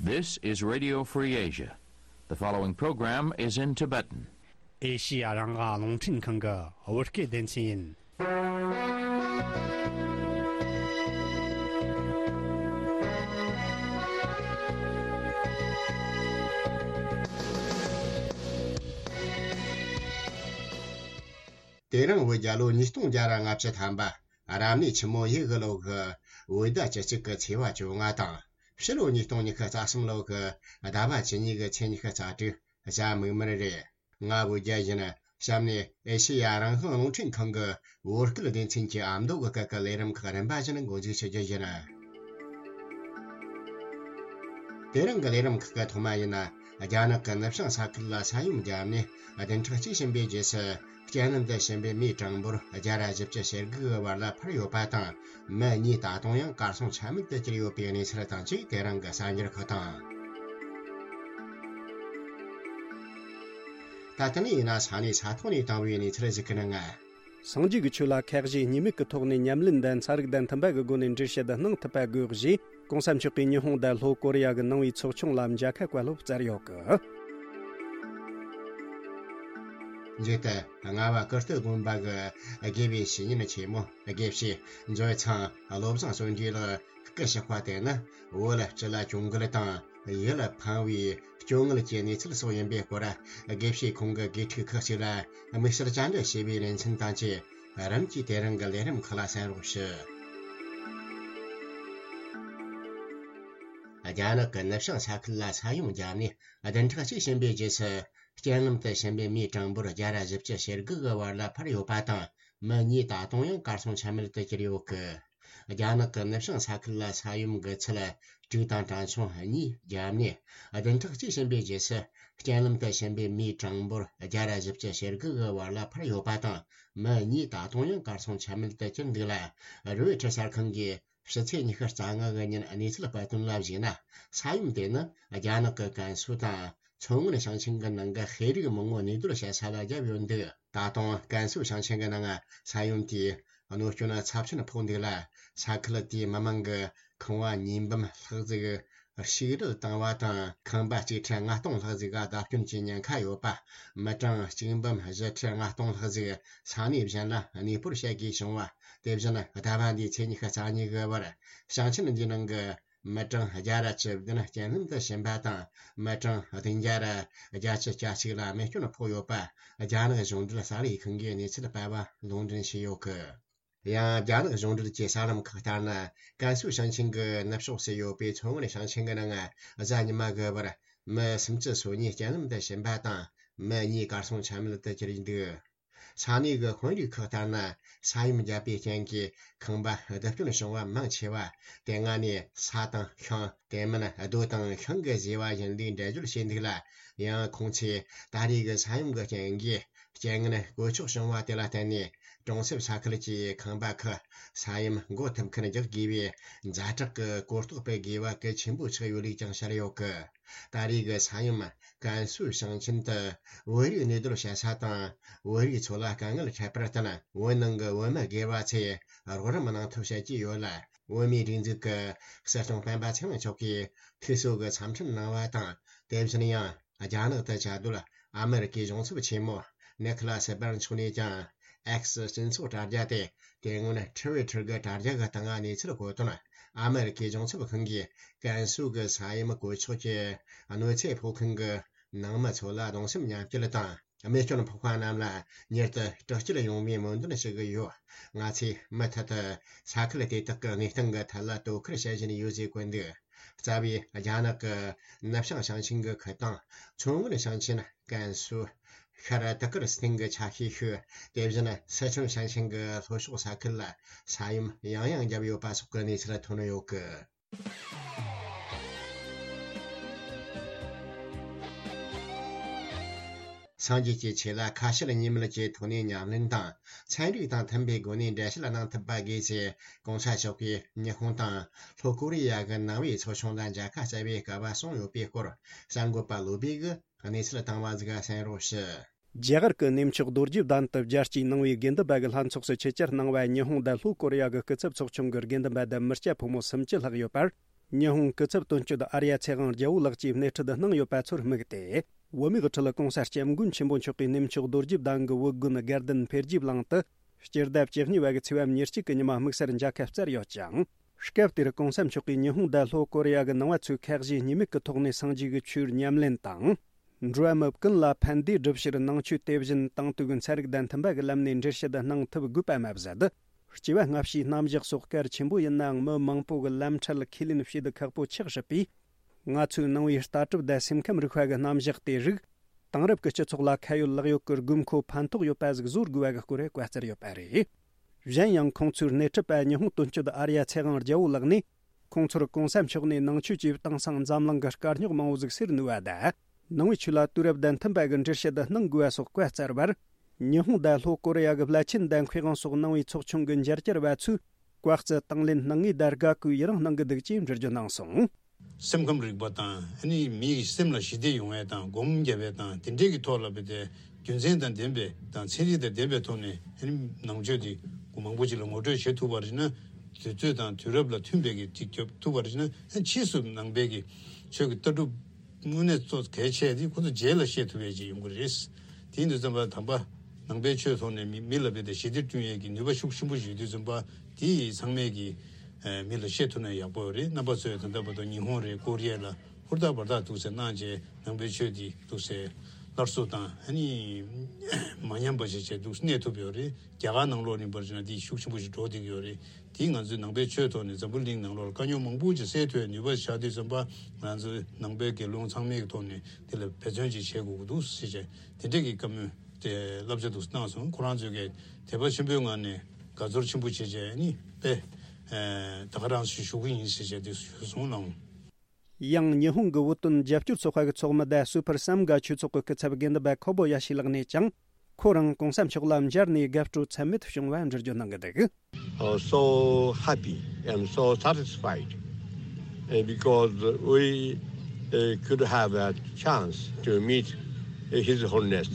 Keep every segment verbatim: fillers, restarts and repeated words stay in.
This is Radio Free Asia. The following program is in Tibetan. ཨེ་ཤི་ཡ་རང་དབང་རླུང་འཕྲིན་ཁང་གི་བོད་སྐད་སྡེ་ཚན་ཡིན། དེ་རིང་བོད་རྒྱལ་ལོ་ཉིས་སྟོང་བརྒྱ་ར་ལྔ་བཅུ་ཐམ་པ། རབ་གནས་ཆུ་མོ་ཡོས་གི་ལོ་གི་བོད་ཟླ་བཅུ་གཅིག་གི་ཚེས་པ་བཅོ་ལྔ་དང་། ཕྱི་ལོ་ཉིས་སྟོང་ཉི་ཤུ་རྩ་གསུམ་ལོ་གི་ཟླ་བ་བཅུ་གཉིས་གི་ཚེས་ཉི་ཤུ་རྩ་དྲུག། གཟའ་མིག་དམར་རེད། ང་བོད་རྒྱལ་ཡིན། གཤམ་ནས་ཨེ་ཤེ་ཡ་རང་དབང་རླུང་འཕྲིན་ཁང་གི་བོད་སྐད་སྡེ་ཚན་གྱི་ཨ་མདོ་གི་སྐད་ཀྱི་ལས་རིམ་ཁག་རིམ་པ་བཞིན་འགོ་འཛུགས་བྱེད་རྒྱུ་ཡིན། དེ་རིང་གི་ལས་རིམ་ཁག་གི་ཐོག་མ་ཡིན་ན། རྒྱ་ནག་གི་ནུབ་བྱང་ས་ཁུལ་ལ་ས་ཡོམ་བརྒྱབ་ནས་བདུན་ཕྲག་གཅིག་ཕྱིན་པའི་རྗེས་སུ། རྐྱེན་ལམ་དུ་ཕྱིན་པའི་མིའི་གྲངས་འབོར་བརྒྱ་ར་བཞི་བཅུ་ཞེ་དགུ་གི་བར་ལ་འཕར་ཡོད་པ་དང་། མི་གཉིས་ད་དུང་ཡང་གར་སོང་ཆ་མེད་དུ་གྱུར་ཡོད་པའི་གནས་ཚུལ་དང་བཅས། དེ་རིང་གི་གསར་འགྱུར་ཁག་དང་། ད་ལྟ་ནས་ཡིན་ན་ས་གནས་ས་ཐོག་ནས་བཏང་བའི་གནས་ཚུལ་ཞིག་གི་ནང་། སངས་རྒྱས་ཀྱི་ཆོས་ལ་ཁ་ཞེ་གཉིས་མེད་ཀྱི་ཐོག་ནས་ཉམས་ལེན་དང་ཚན་རིག་དང་མཐུན་པ་གི་སྒོ་ནས་འགྲེལ་བཤད་གནང་ཐུབ་པ་དགོས་ཞེས། གོང་ས་མཆོག་གིས་ཉི་ཧོང་དང་ལྷོ་ཀོ་རི་ཡ་གི་ནང་པའི་ཚོགས་ཆུང་ལ་མཇལ་ཁ་བཀའ་སློབ་སྩལ་ཡོད་གི། མཇུག་ཏུ། རྔ་བ་ཀིརྟི་དགོན་པ་གི་དགེ་བའི་བཤེས་གཉེན་ཆེན་མོ་དགེ་བཤེས་མཛོད་ཚང་བློ་བཟང་བརྩོན་འགྲུས་ལགས་སྐུ་གཤེགས་པ་དེ་ནི། བོད་སྤྱི་ལ་གྱོང་གུད་དང་ཡིད་ལ་ཕངས་པའི་སྐྱོ་ངལ་གྱི་གནས་ཚུལ་སོགས་ཡིན་པའི་སྐོར། དགེ་བཤེས་ཁོང་གི་དགེ་ཕྲུག་ཁག་ཅིག་ལ་དམིགས་བསལ་བཅར་འདྲི་བྱས་པའི་ལེ་ཚན་དང་བཅས། རིམ་གྱིས་དེ་རིང་གི་ལས་རིམ་ཁག་ལ་གསན་རོགས་ཞུ། རྒྱ་ནག་གི་ནུབ་བྱང་ས་ཁུལ་ལ་ས་ཡོམ་བརྒྱབ་ནས་བདུན་ཕྲག་གཅིག་ཕྱིན་པའི་རྗེས་སུ། རྐྱེན་ལམ་དུ་ཕྱིན་པའི་མིའི་གྲངས་འབོར་བརྒྱ་ར་བཞི་བཅུ་ཞེ་དགུ་གི་བར་ལ་འཕར་ཡོད་པ་དང་། མི་གཉིས་ད་དུང་ཡང་གར་སོང་ཆ་མེད་དུ་གྱུར་ཡོད་གི། རྒྱ་ནག་གི་ནུབ་བྱང་ས་ཁུལ་ལ་ས་ཡོམ་གྱི་ཚད་དྲུག་དང་གྲངས་ཆུང་གཉིས་བརྒྱབ་ནས། བདུན་ཕྲག་གཅིག་ཕྱིན་པའི་རྗེས་སུ། རྐྱེན་ལམ་དུ་ཕྱིན་པའི་མིའི་གྲངས་འབོར་བརྒྱ་ར་བཞི་བཅུ་ཞེ་དགུ་གི་བར་ལ་འཕར་ཡོད་པ་དང་། མི་གཉིས་ད་དུང་ཡང་གར་སོང་ཆ་མེད་དུ་གྱུར་འདུག་ལ། རོའི་ཊར་གསར་ཁང་གིས་ཕྱི་ཚེས་ཉི་ཤུ་རྩ་ལྔ་གི་ཉིན་གནས་ཚུལ་སྤེལ་དོན་ལ་གཞིགས་ན། ས་ཡོམ་དེ་ནི་རྒྱ་ནག་གི་ཀན་སུའུ་དང་མཚོ་སྔོན་ཞིང་ཆེན་གྱི་ནང་གི་ཤེས་རིག་མི་ངོ་གནས་སྡོད་བྱེད་ས་ལ་བརྒྱབ་ཡོད་འདུག། ད་དུང་ཀན་སུའུ་ཞིང་ཆེན་གྱི་ནང་ས་ཡོམ་དེས་གནོད་སྐྱོན་ཚབས་ཆེན་ཕོག་འདུག་ལ། ས་ཁུལ་དེའི་མི་མང་གི་ཁང་བ་གཉིས་འབུམ་ལྷག་ཟིག་ཞིག་རལ་བཏང་བ་དང་། ཁང་པ་གཅིག་ཁྲི་ལྔ་སྟོང་ལྷག་ཟིག་ག་བརྡབ་སྐྱོན་གྱི་ཉེན་ཁ་ཡོད་པ། མི་གྲངས་གཅིག་འབུམ་བཞི་ཁྲི་ལྔ་སྟོང་ལྷག་ཟིག་ས་གནས་གཞན་ལ་གནས་སྤོར་བྱེད་དགོས་བྱུང་བ། དེ་བཞིན་ཟླ་བ་འདིའི་ཚེས་ཉི་ཤུ་རྩ་གཉིས་གི་བར། ཞིང་ཆེན་འདིའི་ནང་གི་མི་གྲངས་བརྒྱ་ར་བཅུ་བདུན་རྐྱེན་ལམ་དུ་ཕྱིན་པ་དང་། མི་གྲངས་བདུན་བརྒྱ་ར་བརྒྱད་ཅུ་གྱ་གཅིག་ལ་རྨས་སྐྱོན་ཕོག་ཡོད་པ། རྒྱ་ནག་གཞུང་འབྲེལ་གསར་ལས་ཁང་གིས་གནས་ཚུལ་སྤེལ་བ་ལུང་འདྲེན་བྱས་ཡོད་གི། ཡང་རྒྱ་ནག་གཞུང་འབྲེལ་གྱི་གསར་ལམ་ཁག་ལྟར་ན། ཀན་སུའུ་ཞིང་ཆེན་གྱི་ནུབ་ཕྱོགས་སུ་ཡོད་པའི་མཚོ་སྔོན་ཞིང་ཆེན་གྱི་ནང་གཟའ་ཉི་མ་གི་བར་མི་སུམ་ཅུ་སོ་གཉིས་རྐྱེན་ལམ་དུ་ཕྱིན་པ་དང་། མི་གཉིས་གར་སོང་ཆ་མེད་དུ་གྱུར་འདུག། ས་གནས་ཀྱི་དཔོན་རིགས་ཁག་ལྟར་ན། ས་ཡོམ་བརྒྱབ་པའི་རྐྱེན་གྱིས་ཁང་པ་རྡིབ་སྐྱོན་བྱུང་བ་མང་ཆེ་བ་དེ་སྔ་ནས་ས་དང་ཤིང་། དེ་མིན་རྡོ་དང་ཤིང་གིས་བཟོས་པ་ཡིན་ལུགས་འགྲེལ་བརྗོད་བྱས་འདུག་ལ། ཡང་ཁོང་ཚོས་ད་རེས་ཀྱི་ས་ཡོམ་གྱི་རྐྱེན་གྱིས། རྐྱེན་ངན་གོད་ཆག་བྱུང་བ་དེ་ལ་བརྟེན་ནས། གྲོང་གསེབ་ས་ཁུལ་གྱི་ཁང་པ་ཁག་ས་ཡོམ་འགོག་ཐུབ་མཁན་རྒྱག་དགོས་པའི་ཛ་དྲག་གི་གོ་རྟོགས་སྤེལ་དགོས་པ་གལ་ཆེན་པོ་ཆགས་ཡོད་ལུགས་ཀྱང་བཤད་ཡོད་གི། ད་རེས་ཀྱི་ས་ཡོམ་ཀན་སུའུ་ཞིང་ཆེན་དུ་བོད་རིགས་གནས་སྡོད་བྱེད་ས་དང་། བོད་རིགས་ཚོ་ལ་དཀའ་ངལ་འཕྲད་པར་བརྟེན། བོད་ནང་གི་བོད་མི་སྒེར་བ་ཚོས་རོགས་རམ་གནང་ཐབས་བྱེད་ཀྱི་ཡོད་ལ། བོད་མིའི་སྒྲིག་འཛུགས་ཀྱི་སྲིད་སྐྱོང་སྤེན་པ་ཚེ་རིང་མཆོག་གིས་ཐུགས་གསོ་གི་འཚམས་འཕྲིན་གནང་བ་དང་། དེ་བཞིན་ཡང་རྒྱ་ནག་ཏུ་བཅའ་སྡོད་ཨ་མེ་རི་ཀའི་གཞུང་ཚབ་ཆེན་མོ་ནེ་ཁི་ལ་སི་སྦར་མཆོག་ནས་ཀྱང་། ཨེག་སི་སྤྱི་ཚོགས་དྲ་རྒྱ་སྟེ། དེ་སྔོན་ཊི་ཝི་ཊར་གྱི་དྲ་རྒྱ་གི་སྟེང་གནས་ཚུལ་བཀོད་དོན། ཨ་མེ་རི་ཀའི་གཞུང་ཚབ་ཁང་གིས་ཀན་སུའུ་གི་ས་ཡོམ་གོད་ཆག་གི་གནོད་འཚེ་ཕོག་མཁན་གྱི་ནང་མི་ཚོ་ལ་གདུང་སེམས་མཉམ་སྐྱེད་དང་། རྨས་སྐྱོན་ཕོག་པ་རྣམས་ལ་མྱུར་དུ་དྲག་སྐྱེད་ཡོང་བའི་སྨོན་འདུན་ཞུ་གི་ཡོད། ང་ཚོས་མུ་མཐུད་དུ་ས་ཁུལ་དེ་དག་གི་གནས་སྟངས་ཀྱི་ཐད་ལ་དོ་ཁུར་བྱེད་བཞིན་ཡོད་ཅེས་བཀོད་འདུག། རྩ་བའི་རྒྱ་ནག་གི་ནུབ་བྱང་ཞིང་ཆེན་གྱི་ཁུལ་དང་། མཚོ་སྔོན་ཞིང་ཆེན། ཀན་སུའུ། ཤར་ཏི་ཀིར་སི་ཐན་གྱི་ཆ་ཤས་ཤིག། དེ་བཞིན་སི་ཁྲོན་ཞིང་ཆེན་གྱི་ལྷོ་ཕྱོགས་ས་ཁུལ་ལ་ས་ཡོམ་ཡང་ཡང་བརྒྱབ་ཡོད་པ་སོགས་ཀྱི་གནས་ཚུལ་ཐོན་ཡོད་གི། སངས་རྒྱས་ཀྱི་ཆོས་ལ་ཁ་ཞེ་གཉིས་མེད་ཀྱི་ཐོག་ནས་ཉམས་ལེན་དང་། ཚན་རིག་དང་མཐུན་པའི་སྒོ་ནས་འགྲེལ་བཤད་གནང་ཐུབ་པ་དགོས་ཞེས། གོང་ས་མཆོག་གིས་ཉི་ཧོང་དང་ལྷོ་ཀོ་རི་ཡ་གི་ནང་པའི་ཚོགས་ཆུང་ལ་མཇལ་ཁ་བསྩལ་བའི་སྐལ་བ་བྱུང་ཡོད་པའི་སྐོར། གསར་འགོད་པ་བློ་བྷེ་གིས་གནས་ཚུལ་བཏང་བ་ཟིག་གསན་རོགས་ཞུ། རྒྱ་གར་གྱི་གནས་མཆོག་རྡོ་རྗེ་གདན་དུ་རྒྱལ་སྤྱིའི་ནང་པའི་དགེ་འདུན་པ་གི་ལྷན་ཚོགས་སུ་ཆེད་བཅར་གནང་བའི་ཉི་ཧོང་དང་ལྷོ་ཀོ་རི་ཡ་གི་སྐུ་ཚབ་ཚོགས་ཆུང་གི་དགེ་འདུན་པ་དང་མི་སྐྱ་ཕོ་མོ་སུམ་ཅུ་ལྷག་ཡོད་པར། ཉི་ཧོང་སྐུ་ཚབ་དོན་གཅོད་ཨར་ཡ་ཚེ་དབང་རྒྱལ་པོ་ལགས་ཀྱིས་སྣེ་ཁྲིད་གནང་ཡོད་པ་ཚོར་དམིགས་ཏེ། བོད་མིའི་ཁྲི་ལ་གོང་ས་སྐྱབས་མགོན་ཆེན་པོ་མཆོག་གིས་གནས་མཆོག་རྡོ་རྗེ་གདན་གྱི་བོད་དགོན་དགའ་ལྡན་འཕེལ་རྒྱས་གླིང་དུ་སྤྱི་ཟླ་བཅུ་གཉིས་པ་གི་ཚེས་པ་ཉེར་གཅིག་གི་ཉི་མ་དམིགས་བསལ་མཇལ་ཁ་བསྩལ་ཡོད་ཅིང་། སྐབས་དེར་གོང་ས་མཆོག་གིས་ཉི་ཧོང་དང་ལྷོ་ཀོ་རི་ཡ་གི་ནང་པ་ཚོས་ཁ་ཞེ་གཉིས་མེད་ཀྱི་ཐོག་ནས་སངས་རྒྱས་ཀྱི་ཆོས་ཉམས་ལེན་དང་། འགྲོ་བ་མི་ཀུན་ལ་ཕན་བདེ་སྒྲུབ་ཕྱིར་ནང་ཆོས་དེ་བཞིན་དེང་དུས་ཀྱི་ཚན་རིག་དང་མཐུན་པ་གི་ལམ་ནས་འགྲེལ་བཤད་གནང་ཐུབ་དགོས་པ་མ་ཟད། སྐྱེ་བ་སྔ་ཕྱིའི་རྣམ་གཞག་སོགས་གལ་ཆེན་པོ་ཡིན་ནའང་མི་མང་པོ་གི་ལམ་ཁྲལ་ཁས་ལེན་བྱེད་དུ་ཁག་པོ་ཆགས་སྲིད་པས། ང་ཚོའི་ནང་པའི་ལྟ་གྲུབ་དང་སེམས་ཁམས་རིག་པ་གི་རྣམ་གཞག་དེ་རིགས་དེང་རབས་ཀྱི་སྤྱི་ཚོགས་ལ་ཁ་ཡོད་ལག་ཡོད་ཀྱི་དགོས་མཁོ་ཕན་ཐོགས་ཡོད་པ་ཟིག་བཟོ་དགོས་པ་གི་སྐོར་བཀའ་སྩལ་ཡོད་པ་རེད། གཞན་ཡང་ཁོང་ཚོའི་སྣེ་ཁྲིད་པ་ཉི་ཧོང་དོན་གཅོད་ཨར་ཡ་ཚེ་དབང་རྒྱལ་པོ་ལགས་ནས། ཁོང་ཚོར་གོང་ས་མཆོག་ནས་ནང་ཆོས་ཀྱིས་དེང་སང་འཛམ་གླིང་གི་དཀའ་རྙོག་མང་བོ་ཟིག་སེལ་ནུས་པ་དང་། ནང་པའི་ཆོས་ལ་དུས་རབས་དང་མཐུན་པ་གི་འགྲེལ་བཤད་གནང་དགོས་པ་སོགས་བཀའ་སྩལ་བར། ཉི་ཧོང་དང་ལྷོ་ཀོ་རི་ཡ་གི་བླ་ཆེན་དང་མཁས་དབང་སོགས་ནང་པའི་ཚོགས་ཆུང་གི་མཇལ་བཅར་བ་ཚོས་བཀའ་སྩལ་དང་ལེན་གནང་ངེས་དང་དགའ་གུས་ཡི་རང་གནང་གི་འདུག་ཅེས་འགྲེལ་བརྗོད་གནང་སོང་། སེམས་ཁམས་རིག་པ་དང་ཨ་ནི་མིའི་སེམས་ལ་ཞི་བདེ་ཡོང་བའི་དང་སྒོམ་རྒྱབ་པའི་དང་དེ་འདྲའི་གི་ཐོག་ལ་བས་ཏེ་རྒྱུ་མཚན་དང་ལྡན་པའི་དང་ཚན་རིག་དང་ལྡན་པའི་ཐོག་ནས་ཨ་ནི་ནང་ཆོས་དེ་མང་པོ་ཅིག་ལ་ངོ་སྤྲོད་བྱེད་ཐུབ་པ་རེད་ན། དུས་ཚོད་དང་དུས་རབས་ལ་མཐུན་པའི་གི་ཅིག་སྐྱོབ་ཐུབ་པ་རེད་ན། ཨ་ཕྱིས་སུ་ནང་པའི་གི་ཆོས་ཀྱི་ལྟ་གྲུབ་དངོས་གནས་གཙོ་གལ་ཆེ་དེ་ཁོ་ཚོ་རྗེས་ལ་བཤད་ཐུབ་པའི་ཅིག་ཡོང་གི་རེད། དེ་ཡིན་དུས་ཙམ་པ་དམ་པ་ནང་པའི་ཆོས་ཐོག་ནས་མི་མི་ལ་བས་ཏེ་ཞི་བདེ་བསྐྲུན་ཡས་ཀྱི་ནུས་པ་ཤུགས་ཆེན་པོ་ཞིག་ཡོད་དུས་ཙམ་པ་དེ་ཚང་མས་ཀྱི་མི་ལ་བཤད་ཐུབ་ན་ཡག་པོ་རེད། རྣམ་པ་ཚོས་ད་ལྟ་བར་དུ་ཉི་ཧོང་རེད་ཀོ་རི་ཡ་ལ་ཧུར་ཐག་འབད་ཐག་འདུག་སེ་གནང་བྱས་ནང་པའི་ཆོས་འདི་འདུག་སེ་སླར་གསོ་དང་ཨ་ནི་མ་ཉམས་པ་ཞིག་བྱས་འདུག་སེ་གནས་ཐུབ་ཡོད་རེད། རྒྱ་གར་ནང་ལོགས་ནས་འབད་བ་ཅིན་འདི་ཤུགས་ཆེན་པོ་ཞིག་འགྲོ་བསྡད་ཀྱི་ཡོད་རེད། དེས་ང་ཚོའི་ནང་པའི་ཆོས་ཐོག་ནས་འཛམ་བུ་གླིང་ནང་ལོགས་ལ་དཀའ་རྙོག་མང་པོ་ཅིག་སེལ་ཐུབ་པའི་ནུས་པ་ཆགས་དུས་ཙམ་པ་ང་ཚོའི་ནང་པའི་དགེ་སློང་ཚང་མའི་ཐོག་ནས་དེ་ལ་འབད་བརྩོན་ཅིག་བྱེད་དགོས་ཀྱི་འདུག་ཟེར་བྱས་དེ་འདྲས་ཀྱི་བཀའ་མོལ་དེ་བསླབ་བྱ་འདུག་སེ་གནང་སོང་། ཁོ་རང་ཚོས་ཀྱི་དད་པ་ཆེན་པོའི་ངང་ནས་དགའ་ཚོར་ཆེན་པོ་བྱེད་བྱས་ནི་དཔེ་ད་ག་རང་ཞིག་ཞུ་གི་ཡིན་ཟེར་བྱས་དེ་ཞུས་སོང་ལགས། ཡང་ཉི་ཧོང་གི་བོད་དོན་རྒྱབ་སྐྱོར་ཚོགས་པ་གི་ཚོགས་མི་དང་སུ་ཕར་སམ་གྷ་ཆོས་ཚོགས་ཀྱི་སྐུ་ཚབ་དགེ་འདུན་པ་ཁོ་བོ་ཡ་ཤི་ལགས་ནས་ཀྱང་ཁོ་རང་གོང་ས་མཆོག་ལ་མཇལ་ནས་དགའ་སྤྲོ་ཚད་མེད་བྱུང་བ་འགྲེལ་བརྗོད་གནང་གི་འདུག uh, so happy and so satisfied uh, because we uh, could have a chance to meet uh, His Holiness.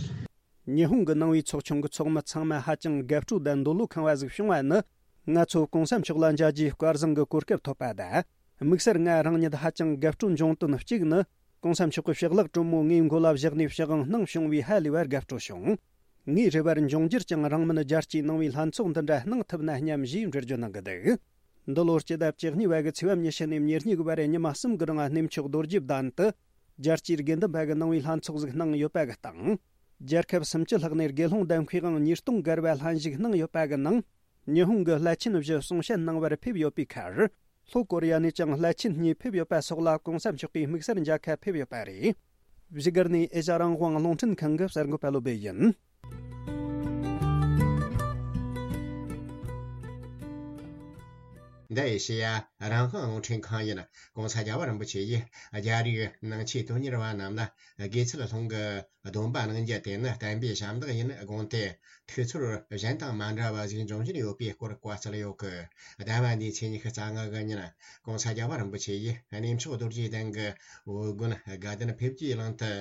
ཉི་ཧོང་གི་ནང་པའི་ཚོགས་ཆུང་གི་ཚོགས་མི་ཚང་མ་ཧ་ཅང་དགའ་སྤྲོ་དང་འདོད་བློ་ཁེངས་པ་ཟིག་བྱུང་བ་ནི། ང་ཚོ་གོང་ས་མཆོག་ལ་མཇལ་རྒྱུའི་སྐལ་བཟང་གི་གོ་སྐབས་ཐོབ་པ་དང་། དམིགས་བསལ་ང་རང་ཉིད་ཧ་ཅང་དགའ་སྤྲོ་འབྱུང་དོན་གཅིག་ནི། གོང་ས་མཆོག་གི་ཕྱག་ལག་དྲོན་མོ་ངའི་མགོ་ལ་བཞག་ནས་ཕྱག་དབང་གནང་བྱུང་བས་ཧ་ལས་པར་དགའ་སྤྲོ་བྱུང་། ངའི་རེ་བར་འབྱུང་འགྱུར་ཀྱང་རིང་མིན་རྒྱལ་སྤྱིའི་ནང་པའི་ལྷན་ཚོགས་འདི་འདྲ་གནང་ཐུབ་ན་སྙམ་ཞེས་འགྲེལ་བརྗོད་གནང་གི་འདུག་འདི་ལོར་སྤྱི་ཟླ་བཅུ་གཉིས་པ་གི་ཚེས་པ་ཉི་ཤུ་ནས་ཉེར་གཉིས་གི་བར་ཉི་མ་གསུམ་གི་རིང་གནས་མཆོག་རྡོ་རྗེ་གདན་དུ། རྒྱལ་སྤྱིའི་དགེ་འདུན་པ་གི་ནང་པའི་ལྷན་ཚོགས་ཟིག་གནང་ཡོད་པ་གི་སྟེང་། རྒྱལ་ཁབ་སུམ་ཅུ་ལྷག་ནས་དགེ་སློང་དང་མཁས་དབང་ཉིས་སྟོང་བརྒལ་བ་ལྷན་ཞུགས་གནང་ཡོད་པ་གི་ནང་། ཉི་ཧོང་གི་བླ་ཆེན་བཞི་གསུང་བཤད་གནང་བར་ཕེབས་ཡོད་པའི་ཁར། ལྷོ་ཀོ་རི་ཡ་ནས་ཀྱང་བླ་ཆེན་གཉིས་ཕེབས་ཡོད་པ་སོགས་ལ་གོང་ས་མཆོག་གིས་དམིགས་བསལ་མཇལ་ཁ་ཕེབས་ཡོད་པ་རེད། བཞུགས་སྒར་ནས་ཨེ་ཤ་རང་དབང་རླུང་འཕྲིན་ཁང་གི་གསར་འགོད་པ་བློ་བྷེ་ཡིན། འདི་ཨེ་ཤེ་ཡ་རང་དབང་རླུང་འཕྲིན་ཁང་ཡིན། ྋགོང་ས་རྒྱལ་བ་རིན་པོ་ཆེ་ཡིས་རྒྱ་རིགས་ནང་ཆོས་དོན་གཉེར་བ་རྣམས་ལ་དགེ་ཚུལ་སློང་གི་སྡོམ་པ་གནང་རྒྱུ་དེ་ནི་བསྟན་པའི་ཞབས་འདེགས་ཡིན་དགོངས་ཏེ། ཐུགས་ཚོར་གཞན་དང་མ་འདྲ་བ་ཞིག་འབྱུང་བཞིན་ཡོད་པའི་སྐོར་བཀའ་སྩལ་ཡོད་གི། ཟླ་བ་འདིའི་ཚེས་ཉི་ཤུ་རྩ་ལྔ་གི་ཉིན་ྋགོང་ས་རྒྱལ་བ་རིན་པོ་ཆེ་ཡིས་གནས་མཆོག་རྡོ་རྗེ་གདན་གྱི་བོད་དགོན་དགའ་ལྡན་འཕེལ་རྒྱས་གླིང་དུ།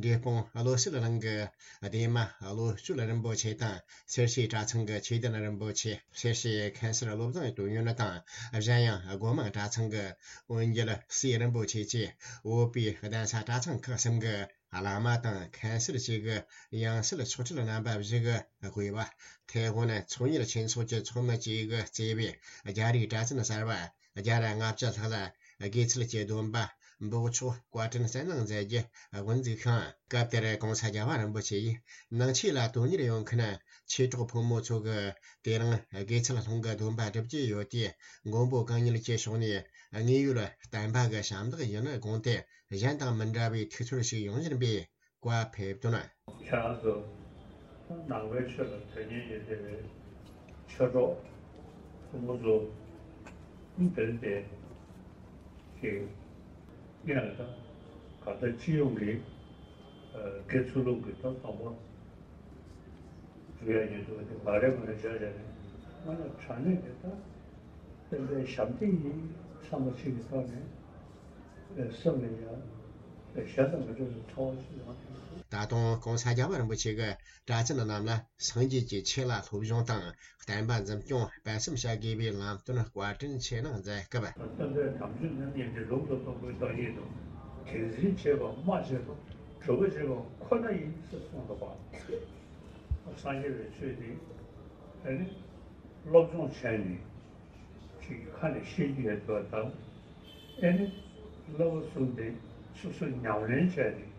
འབྲས་སྤུངས་བློ་གསལ་གླིང་གི་བདེ་མ་བློ་གཅོད་རིན་པོ་ཆེ་དང་། སེར་བྱེས་གྲྭ་ཚང་གི་ཆོས་ལྡན་རིན་པོ་ཆེ། སེར་བྱེས་མཁན་ཟུར་བློ་བཟང་དོན་ཡོད་དང་། གཞན་ཡང་སྒོ་མང་གྲྭ་ཚང་གི་དབོན་རྒྱལ་སྲས་རིན་པོ་ཆེ་བཅས་བོད་པའི་གདན་ས་གྲྭ་ཚང་ཁག་གསུམ་གྱི་བླ་མ་དང་མཁན་ཟུར་བཅས་ཀྱི་ཡང་སྲིད་ཆོག་ཁྲིད་རྣམ་པ་བཞི་གིས་དབུས་པ། ཐའེ་ཝན་ཚོང་གཉེར་ཆོས་ཚོགས་ཀྱི་ཚོགས་མི་བཅས་ཀྱིས་གཙོས་པའི་རྒྱ་རིགས་གྲྭ་བཙུན་གསར་པ་བརྒྱ་དང་ལྔ་བཅུ་ལྷག་ལ་དགེ་ཚུལ་གྱི་སྡོམ་པ་འབོགས་ཆོག་བཀའ་དྲིན་གསན་གནང་མཛད་རྒྱུ་དབུ་འཛུགས་ཤིང་། སྐབས་དེར་ྋགོང་ས་རྒྱལ་བ་རིན་པོ་ཆེ་ཡིས་ནང་ཆོས་ལ་དོན་གཉེར་ཡོང་མཁན་ཆོས་གྲོགས་ཕོ་མོ་ཚོ་གིས་དེ་རིང་དགེ་ཚུལ་སློང་གི་སྡོམ་པ་སྒྲུབ་ཀྱི་ཡོད་དུས། མགོན་པོ་གང་ཉིད་ཀྱི་ཕྱོགས་ནས་དངོས་ཡོད་བསྟན་པ་གི་ཞབས་འདེགས་ཡིན་དགོངས་ཏེ། གཞན་དང་མི་འདྲ་བའི་ཐུགས་ཚོར་ཞིག་ཡོང་བཞིན་པའི་བཀའ་ཕེབས་དོན། ཁྱེད་རང་ཚོ་ནང་པའི་ཆོས་ལ་དོན་གཉེར་ཡོད་བསྡད་པའི་ཆོས་གྲོགས་ཕོ་མོ་ཚོ་དཔེར་ན་དེ་ཞིག་ཡིན་ན། ད་གང་ལྟར་སྤྱི་ཡོངས་ཀྱི་དགེ་ཚུལ་སློང་གི་ཐོག་དང་པོ་འགྲོ་ཡ་ཡོད་འདུག་དེ་མ་རེད་མ་རེད་བྱས་བྱས་ནས་སྔོན་ལ་དྲང་གནས་དེ་ད་བསྟན་པའི་ཞབས་འདེགས་ཡིན་བསམ་པ་ཞིག་གི་ཐོག་ནས་སེམས་ལ་ཡ། གཞན་དང་མི་འདྲ་བའི་ཚོར་བ་ཞིག་ཡོང་གི་འདུག། ད་དུང་༸གོང་ས་༸རྒྱལ་བ་རིན་པོ་ཆེ་གིས་གྲྭ་བཙུན་རྣམས་ལ་སངས་རྒྱས་ཀྱི་ཆོས་ལ་སློབ་སྦྱོང་དང་བསྟན་པ་འཛིན་སྐྱོང་སྤེལ་གསུམ་བྱ་དགོས་པའི་ལམ་སྟོན་བཀའ་དྲིན་ཆེ་གནང་མཛད་སྐབས། སྟོན་པའི་དམ་ཆོས་རྣམ་གཉིས་འདི་ལུང་དུ་བསྟན་པའི་བདག་ཉིད་དུ་དེ་འཛིན་བྱེད་པ་སྨྲ་བྱེད་པ་གྲུབ་པ་བྱེད་པ་ཁོ་ན་ཡིན་ཟེར་གསུངས་འདུག་པ། སངས་རྒྱས་པའི་ཆོས་འདི་ཨ་ནི་སློབ་སྦྱོང་བྱས་ནས། ཅིག་ཁ་ནས་ཤེས་ཀྱི་ཡོད་པ་དང་། ཨེ་ནི། བསླབ་པ་གསུམ་དེ་སོ་སོ་ཉམས་ལེན་བྱས་ཏེ།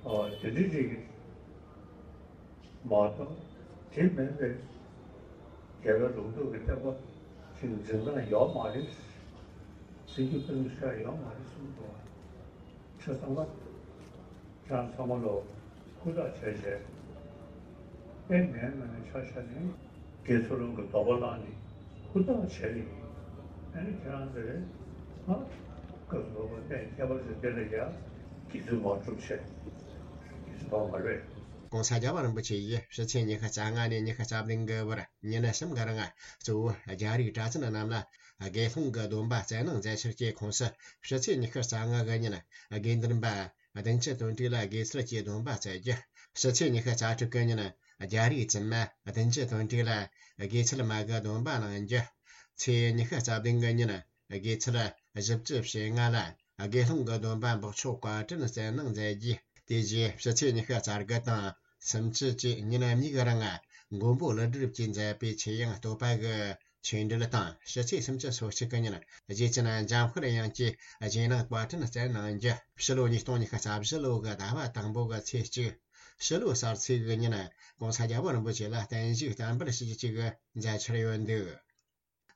ཨོ་དེ་འདྲ་ཅིག་མ་གཏོགས། དེ་མིན་པའི་རྒྱལ་བའི་ལུང་རྟོགས་ཀྱི་བསྟན་པ་ཅིག་འཛིན་སྟངས་ཡོད་མ་རེད། འཛིན་རྒྱུ་ཀུན་ཤ་ཡོད་མ་རེད་གསུངས་འདུག་བ། ཆ་ཚང་མ། ཁྱེད་རང་ཚང་མ་ལོ་ཧུར་ཐག་བྱས་བྱས། ཨེ་ནས་ང་ནས་ཆ་བཞག་ནས་དགེ་ཚུལ་སློང་གི་དོགས་པ་བླངས་ནས་ཧུར་ཐག་བྱས་ནས། ཨེ་ནས་ཁྱེད་རང་ཚོས་ང་སྐབས་སུ་བབ་པ་གནས་ཁྱད་པར་ཅན་འདི་ལ་ཡ་དགེ་ཚུལ་མ་སྒྲུབ་བྱས་དགེ་ཚུལ་འབབ་མ་རེད། ༸གོང་ས་༸རྒྱལ་བ་རིན་པོ་ཆེ་ཡིས་ཕྱི་ཚེས་ཉི་ཤུ་རྩ་ལྔ་ནས་ཉི་ཤུ་རྩ་བདུན་གི་བར་ཉིན་གསུམ་གི་རིང་གཙོ་བོ་རྒྱ་རིགས་གྲྭ་བཙུན་རྣམས་ལ་དགེ་སློང་གི་སྡོམ་པ་སྩལ་གནང་མཛད་ཕྱིར་གྱི་ཁོངས་སུ། ཕྱི་ཚེས་ཉི་ཤུ་རྩ་ལྔ་གི་ཉིན་དགེ་འདུན་པ་བདུན་ཅུ་དོན་གྲུབ་ལ་དགེ་ཚུལ་གྱི་སྡོམ་པ་སྩལ་རྒྱུ། ཕྱི་ཚེས་ཉི་ཤུ་རྩ་དྲུག་གི་ཉིན་རྒྱ་རིགས་བཙུན་མ་བདུན་ཅུ་དོན་གྲུབ་ལ་དགེ་ཚུལ་མ་གི་སྡོམ་པ་གནང་རྒྱུ། ཚེས་ཉི་ཤུ་རྩ་བདུན་གི་ཉིན་དགེ་ཚུལ་བཞི་བཅུ་ཞེ་ལྔ་ལ་དགེ་སློང་གི་སྡོམ་པ་འབོགས་ཆོག་བཀའ་དྲིན་སྩལ་གནང་མཛད་རྒྱུ། དེ་རྗེས་ཕྱི་ཚེས་ཉི་ཤུ་རྩ་དགུ་དང་སུམ་ཅུ་བཅས་ཉིན་གཉིས་ཀྱི་རིང་མགོན་པོ་ཀླུ་སྒྲུབ་ཀྱིས་མཛད་པའི་ཆོས་དབྱིངས་བསྟོད་པ་གི་ཆོས་འབྲེལ་དང་། ཕྱི་ཚེས་སུམ་ཅུ་སོ་གཅིག་གི་ཉིན་རྗེ་བཙུན་འཇམ་དཔལ་དབྱངས་ཀྱིས་རྗེས་གནང་བཀའ་དྲིན་སྩལ་གནང་རྒྱུ། ཕྱི་ལོ་ཉིས་སྟོང་ཉི་ཤུ་རྩ་བཞི་ལོ་གི་ཟླ་བ་དང་པོ་གི་ཚེས་གཅིག། ཕྱི་ལོ་གསར་ཚེས་ཀྱི་ཉིན་༸གོང་ས་༸རྒྱལ་བ་རིན་པོ་ཆེ་ལ་བརྟན་བཞུགས་བསྟར་འབུལ་ཞུ་རྒྱུ་བཅས་མཛད་འཆར་ཡོད་འདུག།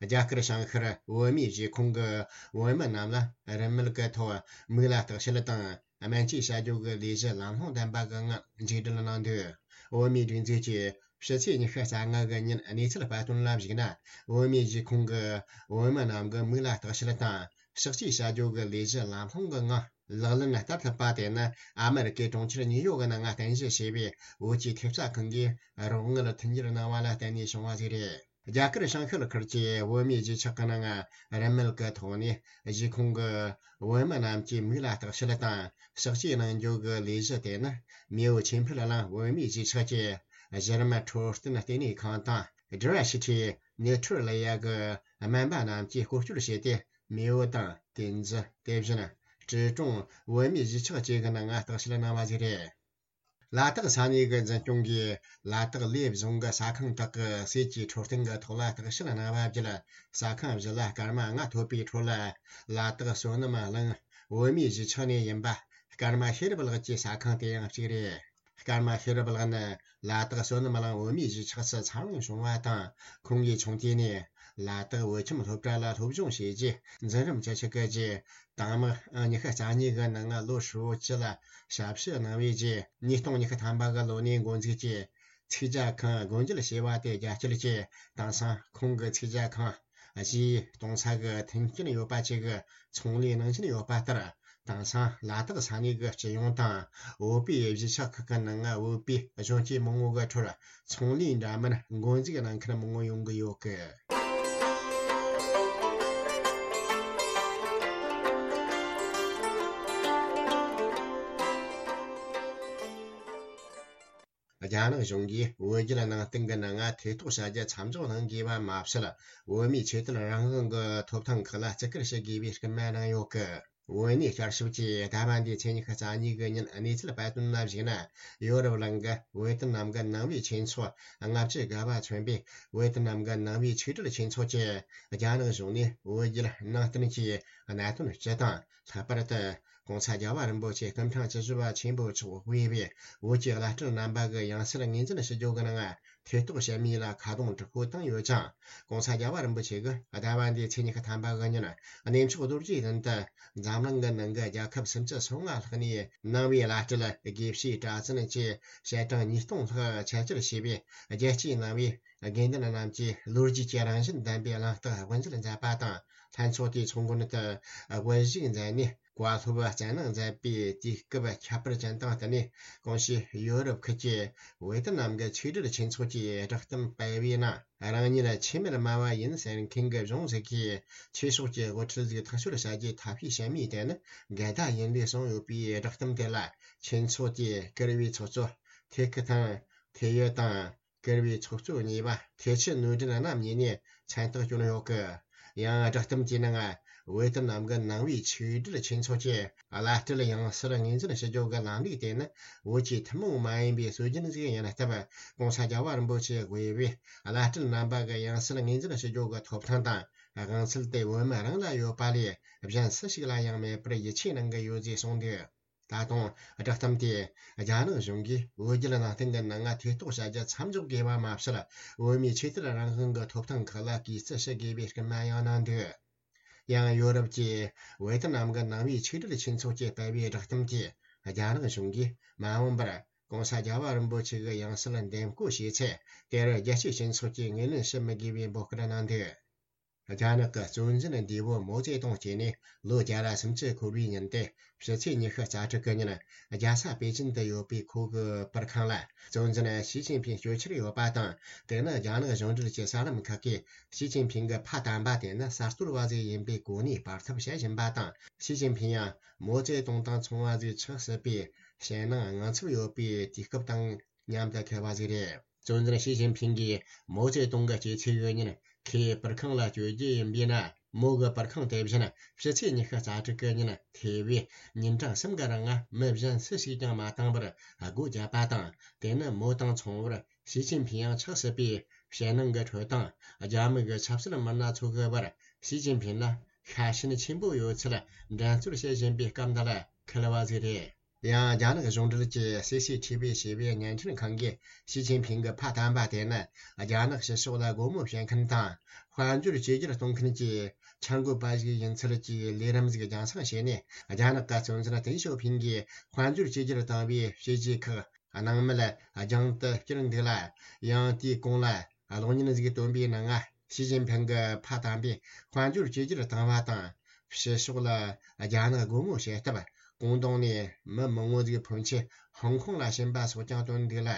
རྒྱ་གར་བྱང་ཤར་བོད་མིའི་གཞིས་ཁོངས་ཀྱི་བོད་མི་རྣམས་ལ་རིན་མེད་ཀྱི་ཐོག་མིག་ལ་བརྟག་དཔྱད་དང་སྨན་བཅོས་བྱ་རྒྱུ་གི་ལས་གཞི་ལམ་ལྷོང་ལྡན་པ་གི་ངང་མཇུག་སྒྲིལ་གནང་འདུག། བོད་མིའི་སྒྲིག་འཛུགས་ཀྱིས་ཕྱི་ཚེས་ཉི་ཤུ་རྩ་ལྔ་གི་ཉིན་གནས་ཚུལ་སྤེལ་དོན་ལ་གཞིགས་ན། བོད་མིའི་གཞིས་ཁོངས་ཀྱི་བོད་མི་རྣམས་ཀྱི་མིག་ལ་བརྟག་དཔྱད་དང་གཤག་བཅོས་བྱ་རྒྱུ་གི་ལས་གཞི་ལམ་ལྷོང་གི་ངང་ལག་ལེན་བསྟར་ཐུབ་པ་དེ་ནི་ཨ་མེ་རི་ཀའི་གྲོང་ཁྱེར་ཉིའུ་ཡོག་གི་ནང་རྟེན་གཞི་བྱས་པའི་བོད་ཀྱི་ཐེབས་རྩ་ཁང་གིས་རོགས་དངུལ་མཐུན་འགྱུར་གནང་བ་ལ་བརྟེན་ནས་བྱུང་བ་ཞིག་རེད། རྒྱ་གར་བྱང་ཤར་ཁུལ་གྱི་བོད་མིའི་གཞིས་ཆགས་ཀྱི་ནང་རིན་མེད་ཀྱི་ཐོག་ནས་གཞིས་ཁོངས་ཀྱི་བོད་མི་རྣམས་ཀྱི་མིག་ལ་བརྟག་དཔྱད་དང་གཤག་བཅོས་གནང་རྒྱུ་གི་ལས་གཞི་དེ་ནི་མེའོ་ཆོས་འཕེལ་གླིང་བོད་མིའི་གཞིས་ཆགས་ཀྱི་གཞི་རིམ་འཕྲོད་བསྟེན་ལྟེ་གནས་ཁང་དང་། Diversity Neutralia གི་སྨན་པ་རྣམས་ཀྱིས་སྐོར་སྐྱོད་བྱས་ཏེ། མེའོ་དང་། ཏིན་ཙི། དེ་བཞིན་ཀྲི་ཀྲུང་བོད་མིའི་གཞིས་ཆགས་བཅས་ཀྱི་ནང་བརྟག་དཔྱད་གནང་བ་ཞིག་རེད། ལ་དྭགས་ས་གནས་ཀྱི་འཛིན་སྐྱོང་གིས་ལ་དྭགས་ལས་བཟུང་གི་ཟ་ཁང་དག་གི་ཟས་ཀྱི་འཕྲོད་བསྟེན་གྱི་ཐོག་ལ་བརྟག་དཔྱད་གནང་བ་བརྒྱུད། ཟ་ཁང་བཞི་ལ་སྐར་མ་ལྔ་ཐོབ་པའི་ཁྲོད་ལ། ལ་དྭགས་བསོད་ནམས་གླིང་བོད་མིའི་གཞིས་ཆགས་ནས་ཡིན་པ་སྐར་མ་ཤེས་རབ་ལགས་ཀྱི་ཟ་ཁང་དེ་ཡང་གཅིག་རེད། སྐར་མ་ཤེས་རབ་ལགས་ནི་ལ་དྭགས་བསོད་ནམས་གླིང་བོད་མིའི་གཞིས་ཆགས་སུ་འཚར་ལོངས་བྱུང་བ་དང་། ཁོང་གིས་ཆུང་དུས་ནས་ལ་དྭགས་བོད་ཁྱིམ་སློབ་གྲྭ་ལ་སློབ་སྦྱོང་བྱས་རྗེས། འཛིན་རིམ་བཅུ་གཅིག་གི་རྗེས། དྭངས་མ་ཉི་ཤུ་རྩ་གཉིས་ཀྱི་ནང་ལོ་ཧྲིལ་བོ་བཅུ་ལ་ཞབས་ཕྱི་གནང་བའི་རྗེས། ཉིས་སྟོང་ཉི་ཤུ་ཐམ་པ་གི་ལོ་ནས་འགོ་འཛུགས་ཀྱིས་ཚིག་ཇ་ཁང་སྒོ་འབྱེད་བྱས་པ་དེ་རྒྱ་སྐྱེད་ཀྱིས། དེང་སང་ཁོང་གི་ཚིག་ཇ་ཁང་གཞིས་གཏོང་ས་གི་མཐུན་རྐྱེན་ཡོད་པ་བཅས་ཀྱི་ཚོང་ལས་གནང་བཞིན་ཡོད་པ་ལྟར། དེང་སང་ལ་དྭགས་ས་གནས་ཀྱི་སྤྱི་ཡོངས་དང་བོད་པའི་གཞིས་ཆགས་ཁག་གི་ནང་བོད་པའི་གཞོན་སྐྱེས་མང་བོ་གི་ཁྲོད་ཚོང་ལས་འདྲ་མིན་འགོ་འཛུགས་གནང་མཁན་མང་བོ་ཡོང་གི་ཡོད་ཀི། རྒྱ་ནག་གཞུང་གིས་བོད་བརྒྱུད་ནང་བསྟན་གྱི་ནང་ཐེ་གཏོགས་བྱ་རྒྱུ་མཚམས་འཇོག་གནང་དགོས་པ་མ་ཟད། བོད་མིའི་ཆོས་དད་རང་དབང་གི་ཐོབ་ཐང་ཁག་ལ་བརྩི་བཀུར་ཞུ་དགོས་པའི་སྐུལ་མ་གནང་ཡོད་ཀི། བོད་གནས་བསྐྱར་ཞིབ་ཀྱིས་ཟླ་བ་འདིའི་ཚེས་ཉི་ཤུ་རྩ་གཉིས་ཀྱི་ཉིན་གནས་ཚུལ་སྤེལ་དོན་ལ་གཞིགས་ན། ཡོ་རོབ་གླིང་གི་བོད་དོན་ནམ་མཁའི་ནང་པའི་ཆོས་ཚོགས་ལྔ་བཅུ་ང་བ་མཚོན་པའི་བོད་དོན་ནམ་མཁའི་ནང་པའི་ཆོས་གྲོས་ཆོས་ཚོགས་ཀྱིས་རྒྱ་ནག་གཞུང་ནས་བོད་བརྒྱུད་ནང་བསྟན་གྱི་གནད་དོན་སྤྱི་དང་། ལྷག་པར་དུ་༸གོང་ས་རྒྱལ་བ་རིན་པོ་ཆེ་སྐུ་ཕྲེང་བཅུ་བཞི་པ་ཆེན་པོ་མཆོག་དབུས་པའི་བོད་ཀྱི་བླ་སྤྲུལ་རྣམ་པ་གི་ཡང་སྲིད་ངོས་འཛིན་ཞུ་རྒྱུ་གི་ནང་ཐེ་གཏོགས་བྱེད་མིན་ལ་ཁ་རྡུང་དྲག་པོ་བཏང་ཡོད་ཅིང་། ༸གོང་ས་རྒྱལ་བ་རིན་པོ་ཆེ་གིས་ཟླ་བ་འདིའི་ཚེས་ཉི་ཤུ་ཐམ་པ་གི་ཉིན་གནས་མཆོག་རྡོ་རྗེ་གདན་དུ་འཛམ་གླིང་གི་ནང་གི་རྒྱལ་ཁབ་སུམ་ཅུ་སོ་ལྔ་ལྷག་ནས་ནང་པའི་བླ་སྤྲུལ་དགེ་བཤེས་གྲྭ་བཙུན་བཅས་བཤད་གྲངས་ཉིས་སྟོང་ལྷག་ཆེད་བཅར་བྱས་པའི་རྒྱལ་སྤྱིའི་ནང་པའི་དགེ་འདུན་རྣམས་ཀྱིས་ལོ་རྒྱུས་ཀྱི་རང་བཞིན་ལྡན་པའི་གླེང་སྟེགས་དབུ་འབྱེད་མཛད་པ་དང་། ལྷན་ཚོགས་དེའི་ཚོགས་མགོན་དུ་དབུ་བཞུགས་མཛད་ནས། བཀའ་སློབ་སྩལ་གནང་མཛད་པའི་དུས་སྐབས་ཁྱད་པར་ཅན་དང་བསྟུན་ནས། གོང་ཞུས་ཡོ་རོབ་ཁུལ་གྱི་ཝེ་ཏི་ནམ་གྱི་ཆིག་སྒྲིལ་ཆོས་ཚོགས་ཀྱི་བསྒྲགས་གཏམ་སྤེལ་བའི་ནང་། རང་ཉིད་ཆེས་མེད་དམའ་བ་ཡིན་ཟེར་མཁན་གྱི་གཞུང་ཞིག་གིས་ཆོས་ཕྱོགས་ཀྱི་དབུ་ཁྲིད་ཞིག་ཐག་གཅོད་བྱ་རྒྱུའི་ཐབས་ཤེས་བྱེད་མུས་དེ་ནི་འགལ་ཟླ་ཡིན་ལུགས་གསུངས་ཡོད་པའི་བསྒྲགས་གཏམ་དེ་ལ། ཆོས་ཚོགས་ཀྱི་བཀུར་འོས་ཚོགས་གཙོ་ཐེ་ཁི་ཐང་ཐེ་ཡོད་དང་། བཀུར་འོས་ཚོགས་གཙོ་གཉིས་པ་ཐེ་ཆི་ནོར་ལྡན་རྣམ་གཉིས་ནས་མཚན་རྟགས་བསྐྱོན་ཡོད་ཀི། ཡང་བསྒྲགས་གཏམ་གྱི་ནང་། ཝེ་ཏི་ནམ་གྱི་ནང་པའི་ཆིག་སྒྲིལ་ཆོས་ཚོགས་ཀྱི་བླ་སྤྲུལ་ཡང་སྲིད་ངོས་འཛིན་ཞུ་རྒྱུ་གི་ལམ་ལུགས་དེ་ནི་བོད་ཀྱི་ཐུན་མོང་མ་ཡིན་པའི་སྲོལ་རྒྱུན་ཞིག་ཡིན་སྟབས། གོང་ས་རྒྱལ་བ་རིན་པོ་ཆེ་དབུས་པའི་བླ་སྤྲུལ་རྣམ་པ་གི་ཡང་སྲིད་ངོས་འཛིན་ཞུ་རྒྱུ་གི་ཐོབ་ཐང་དང་དབང་ཚད་དེ་བོད་མི་རང་ལ་ཡོད་པ་ལས་གཞན་སུ་ཞིག་ལ་ཡང་མེད་པར་ཡིད་ཆེས་གནང་གི་ཡོད་ཅེས་གསུངས་འདུག། ད་དུང་བསྒྲགས་གཏམ་དེས་རྒྱ་ནག་གཞུང་གིས་བོད་བརྒྱུད་ནང་བསྟན་གྱི་ནང་ང་ཐེ་གཏོགས་བྱ་རྒྱུ་མཚམས་འཇོག་དགོས་པ་མ་ཟད། བོད་མིའི་ཆོས་དད་རང་དབང་གི་ཐོབ་ཐང་ཁག་ལ་གུས་བརྩི་ཞུ་དགོས་པའི་སྐུལ་མ་ཡང་གནང་འདུག། ཡང་ཡོ་རོབ་ཀྱི་ཝེ་ཏི་ནམ་གྱི་ནང་པའི་ཆིག་སྒྲིལ་ཆོས་ཚོགས་ཀྱིས་སྤེལ་བའི་བསྒྲགས་གཏམ་གྱིས། རྒྱ་ནག་གཞུང་གིས་མ་འོངས་པར་གོང་ས་རྒྱལ་བ་རིན་པོ་ཆེ་གི་ཡང་སྲིད་འདེམས་བསྐོ་བྱས་ཚེ། དེར་རྒྱལ་སྤྱིའི་སྤྱི་ཚོགས་ཀྱིས་ངོས་ལེན་བྱེད་མི་དགོས་པའི་འབོད་སྐུལ་གནང་འདུག། རྒྱ་ནག་གི་གཙོ་འཛིན་འདས་པོ་མའོ་ཙེ་ཏུང་སྐྱེས་ནས་ལོ་བརྒྱ་ར་སུམ་ཅུ་འཁོར་བའི་ཉིན་ཏེ། ཕྱི་ཚེས་ཉི་ཤུ་རྩ་དྲུག་གི་ཉིན། རྒྱལ་ས་པེ་ཅིན་དུ་ཡོད་པའི་ཁོ་གི་པར་ཁང་ལ། གཙོ་འཛིན་ཞི་ཅིན་ཕིང་སྐྱོད་འཆར་ཡོད་པ་དང་། དེ་ནི་རྒྱ་ནག་གཞུང་འབྲེལ་གྱི་གསར་ལམ་ཁག་གིས། ཞི་ཅིན་ཕིང་གི་ཕ་དམ་པ་དེ་ནི་གསར་གཏོད་པ་ཞིག་ཡིན་པའི་གོ་གནས་སྤར་ཐབས་བྱེད་བཞིན་པ་དང་། ཞི་ཅིན་ཕིང་ཡང་མའོ་ཙེ་ཏུང་དང་མཚུངས་པ་ཞིག་ཆགས་སྲིད་པའི་ཞེད་སྣང་དངངས་འཚབ་ཡོད་པའི་དུས་སྐབས་དང་མཉམ་དུ་འཁེལ་བ་ཞིག་རེད། གཙོ་འཛིན་ཞི་ཅིན་ཕིང་གིས་མའོ་ཙེ་ཏུང་གི་སྐྱེས་ཚེས་ཡོད་ཉིན། ཁོའི་པར་ཁང་ལ་བསྐྱོད་རྒྱུ་ཡིན་པས་ན། མོ་གི་པར་ཁང་དེ་བཞིན་ཕྱི་ཚེས་ཉི་ཤུ་རྩ་དྲུག་གི་ཉིན། ཐེ་བའི་ཉིན་གྲངས་གསུམ་གི་རིང་མི་གཞན་སུ་ཞིག་ཀྱང་མ་བཏང་བར་སྒོ་བརྒྱབ་པ་དང་། དེ་ནི་མོ་དང་མཚུངས་པར་ཞི་ཅིན་ཕིང་ཡང་ཆགས་སྲིད་པའི་ཞེད་སྣང་གི་ཁྲོད་དང་། རྒྱ་མི་གི་ཆབ་སྲིད་མི་སྣ་ཚོ་གི་བར་ཞི་ཅིན་ཕིང་ལ་ཤ་ཞེན་ཆེན་པོ་ཡོད་ཚུལ་འགྲན་རྩོད་བྱེད་བཞིན་པའི་སྐབས་འདི་ལ་འཁེལ་བ་ཞིག་རེད། ཡང་རྒྱ་ནག་གཞུང་འབྲེལ་གྱི་སི་སི་ཐི་བི་ཞེས་པའི་བརྙན་འཕྲིན་ཁང་གིས། ཞི་ཅིན་ཕིང་གི་ཕ་དམ་པ་དེ་ནི་རྒྱ་ནག་ཕྱི་ཕྱོགས་ལ་སྒོ་མོ་ཕྱེ་མཁན་དང་། དཔལ་འབྱོར་བཅོས་བསྒྱུར་གཏོང་མཁན་གྱི་འཆར་འགོད་པ་ཞིག་ཡིན་ཚུལ་གྱི་ལས་རིམ་ཞིག་རྒྱང་སྲིང་བྱས་ནས། རྒྱ་ནག་གི་གཙོ་འཛིན་ཏེང་ཞའོ་ཕིང་གིས་དཔལ་འབྱོར་བཅོས་བསྒྱུར་བཏང་བའི་བྱས་རྗེས་ཁག་སྣང་མེད་རྒྱང་དུ་བསྐྱུར་འདུག་ལ། ཡང་དེའི་གོང་ལ། གློག་བརྙན་ཞིག་བཏོན་པའི་ནང་། ཞི་ཅིན་ཕིང་གི་ཕ་དམ་པས་དཔལ་འབྱོར་བཅོས་བསྒྱུར་བཏང་བ་དང་། ཕྱི་ཕྱོགས་ལ་རྒྱ་ནག་སྒོ་མོ་ཕྱེ་སྟབས། ཀུང་ཏུང་ནས་མི་མང་བོ་ཞིག་ཕོན་ཆེ་ཧོང་ཀོང་ལ་ཕྱིན་པ་སོགས་ཀྱང་བཏོན་འདུག་ལ།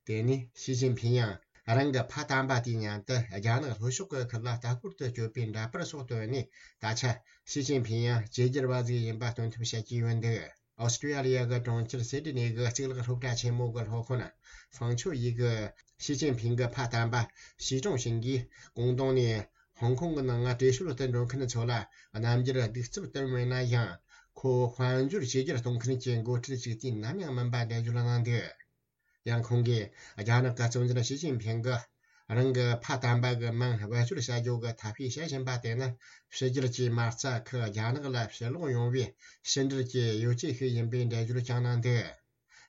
དེ་ནས་ཞི་ཅིན་ཕིང་ཡང་རང་གི་ཕ་དམ་པ་དེའི་མཉམ་དུ་རྒྱ་ནག་ལྷོ་ཕྱོགས་ཀྱི་ཁུལ་ལ་ལྟ་སྐོར་དུ་བསྐྱོད་པའི་འདྲ་པར་སོགས་བཏོན་ནས། ད་ཆ་ཞི་ཅིན་ཕིང་ཡང་བཅོས་བསྒྱུར་བ་ཞིག་ཡིན་པ་སྟོན་ཐབས་བྱེད་ཀྱི་ཡོད་འདུག། ཨོ་སི་ཀྲི་ཡ་ལི་ཡ་གི་གྲོང་ཁྱེར་སིད་ནི་གི་གཙུག་ལག་སློབ་གྲྭ་ཆེན་མོ་གི་སློབ་དཔོན་ཧྥང་ཆོ་ཡི་གིས། ཞི་ཅིན་ཕིང་གི་ཕ་དམ་པ་ཞི་ཀྲུང་ཞིང་གིས་ཀུང་ཏུང་ནས་ཧོང་ཀོང་གི་ནང་བྲོས་བྱོལ་དུ་འགྲོ་མཁན་ཚོ་ལ་རྣམ་འགྱུར་གདུག་རྩུབ་སྟོན་མེད་ན་ཡང་། ཁོ་དཔལ་འབྱོར་བཅོས་བསྒྱུར་གཏོང་མཁན་གྱི་འགོ་ཁྲིད་ཅིག་དུས་ནམ་ཡང་མིན་པ་འགྲེལ་བརྗོད་གནང་འདུག། ཡང་ཁོང་གིས་རྒྱ་ནག་གི་གཙོ་འཛིན་ཞི་ཅིན་ཕིང་གིས་རང་གི་ཕ་དམ་པ་གི་མིང་བེད་སྤྱོད་བྱ་རྒྱུ་གི་ཐབས་ཤེས་བྱེད་བཞིན་པ་དེ་ནི། ཕྱི་རྒྱལ་གྱི་མ་རྩ་ཁག་རྒྱ་ནག་ལ་ཕྱིར་ལོག་ཡོང་བའི་ཕྱི་འབྲེལ་གྱི་ཡོ་བྱད་ཞིག་ཡིན་པའི་འགྲེལ་བརྗོད་ཀྱང་གནང་འདུག།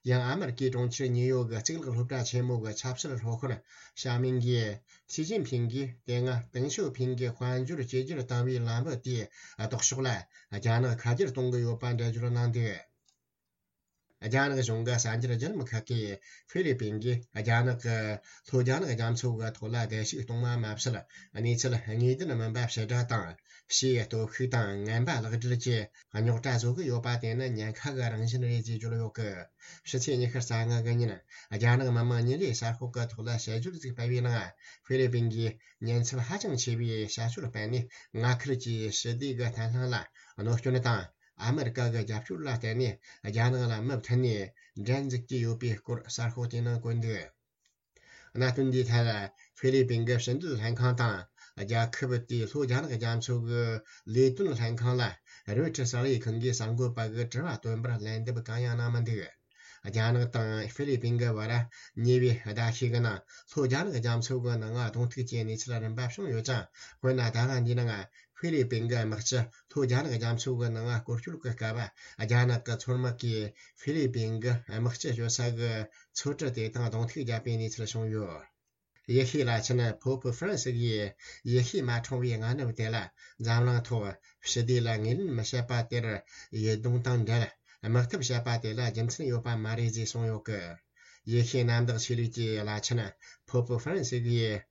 ཡང་ཨ་མེ་རི་ཀའི་གྲོང་ཁྱེར་ཉིའུ་ཡོག་གི་གཙུག་ལག་སློབ་གྲྭ་ཆེན་མོ་གི་ཆབ་སྲིད་སློབ་དཔོན་ཞའོ་མིང་གིས། ཞི་ཅིན་ཕིང་གིས་དེ་སྔ་ཏེང་ཞའོ་ཕིང་གིས་དཔལ་འབྱོར་བཅོས་བསྒྱུར་བཏང་བའི་ལམ་བུ་དེའི་ལྡོག་ཕྱོགས་ལ་རྒྱ་ནག་ཁ་སྒྱུར་གཏོང་གི་ཡོད་པ་འགྲེལ་བརྗོད་གནང་འདུག། རྒྱ་ནག་གཞུང་གི་གསར་འགྱུར་བརྒྱུད་ལམ་ཁག་གིས། ཧྥི་ལི་པིན་གྱིས་རྒྱ་ནག་གི་ལྷོ་རྒྱ་ནག་རྒྱ་མཚོ་གི་ཐོག་ལ་བརྡལ་བཤིག་གཏོང་བ་མ་ཟད། གནས་ཚུལ་དངོས་བདེན་མིན་པ་ཕྱིར་བསྒྲགས་དང་། ཕྱིའི་སྟོབས་ཤུགས་དང་ངན་པ་ལག་སྦྲེལ་གྱི་རྙོག་དྲ་བཟོ་གི་ཡོད་པ་དེ་ནི་ཉེན་ཁ་གི་རང་བཞིན་རེད་ཅེས་བརྗོད་ཡོད་སྐད། ཕྱི་ཚེས་ཉི་ཤུ་རྩ་ལྔ་གི་ཉིན། རྒྱ་ནག་མི་དམངས་ཉིན་རེའི་གསར་ཤོག་གི་ཐོག་ལ་དཔྱད་བརྗོད་ཅིག་སྤེལ་བའི་ནང་། ཧྥི་ལི་པིན་གྱིས་ཉེན་ཚབས་ཧ་ཅང་ཆེ་བའི་བྱ་སྤྱོད་སྤེལ་ནས། མངའ་ཁུལ་གྱི་ཞི་བདེ་གི་བརྟན་ལྷིང་ལ་གནོད་སྐྱོན་དང་། ཨ་མི་རི་ཀ་གི་རྒྱབ་སྐྱོར་ལ་བརྟེན་ནས་རྒྱ་ནག་ལ་མུ་མཐུད་ནས་འགྲན་འཛུགས་ཀྱི་ཡོད་པའི་སྐོར་གསར་ཤོག་དེའི་ནང་བཀོད་འདུག། གནད་དོན་འདིའི་ཐད། ཧྥི་ལི་པིན་གྱི་ཕྱི་འབྲེལ་ལྷན་ཁང་དང་། རྒྱལ་ཁབ་དེའི་ལྷོ་རྒྱ་ནག་རྒྱ་མཚོ་གི་ལས་དོན་ལྷན་ཁང་ལ་རོའི་ཊར་གསར་ལས་ཁང་གིས་གསར་འགོད་པ་གི་དྲི་བ་བཏོན་པར་ལན་འདེབས་གང་ཡང་གནང་མི་འདུག། རྒྱ་ནག་དང་ཧྥི་ལི་པིན་གྱི་བར་ཉེ་བའི་ཟླ་ཤས་ཀྱི་ནང་། ལྷོ་རྒྱ་ནག་རྒྱ་མཚོ་གི་ནང་གདོང་ཐུག་གི་གནས་ཚུལ་རིམ་པ་བྱུང་ཡོད་ཀྱང་། དཔེར་ན། ཟླ་བ་འདིའི་ནང་ཧྥི་ལི་པིན་གྱི་དམག་སྤྱི་ལྷོ་རྒྱ་ནག་རྒྱ་མཚོ་གི་ནང་སྐོར་སྐྱོད་ཀྱི་སྐབས། རྒྱ་ནག་གི་མཚོ་དམག་གིས་ཧྥི་ལི་པིན་གྱི་དམག་སྤྱི་སྐྱོད་ས་གི་མཚོ་གྲུ་དེ་དང་གདོང་ཐུག་བརྒྱབ་པའི་གནས་ཚུལ་བྱུང་ཡོད། ཡེ་ཤུའི་བླ་ཆེན་ཕོ་ཕུ་ཧྥ་རན་སི་ཡིས། ཡེ་ཤུའི་མ་འཁྲུངས་པའི་སྔ་ནུབ་དེ་ལ་འཛམ་གླིང་ཐོག་ཞི་བདེ་ལ་ངོས་ལེན་མི་བྱེད་པ་དེར། ཡིད་གདུང་དང་འབྲེལ་དམག་འཐབ་བྱེད་པ་དེ་ལ་རྒྱུ་མཚན་ཡོད་པ་མ་རེད་ཅེས་གསུངས་ཡོད་སྐད། ཡེ་ཤུའི་གནམ་བདག་ཆོས་ལུགས་ཀྱི་བླ་ཆེན་ཕོ་ཕུ་ཧྥ་རན་སི་ཡིས།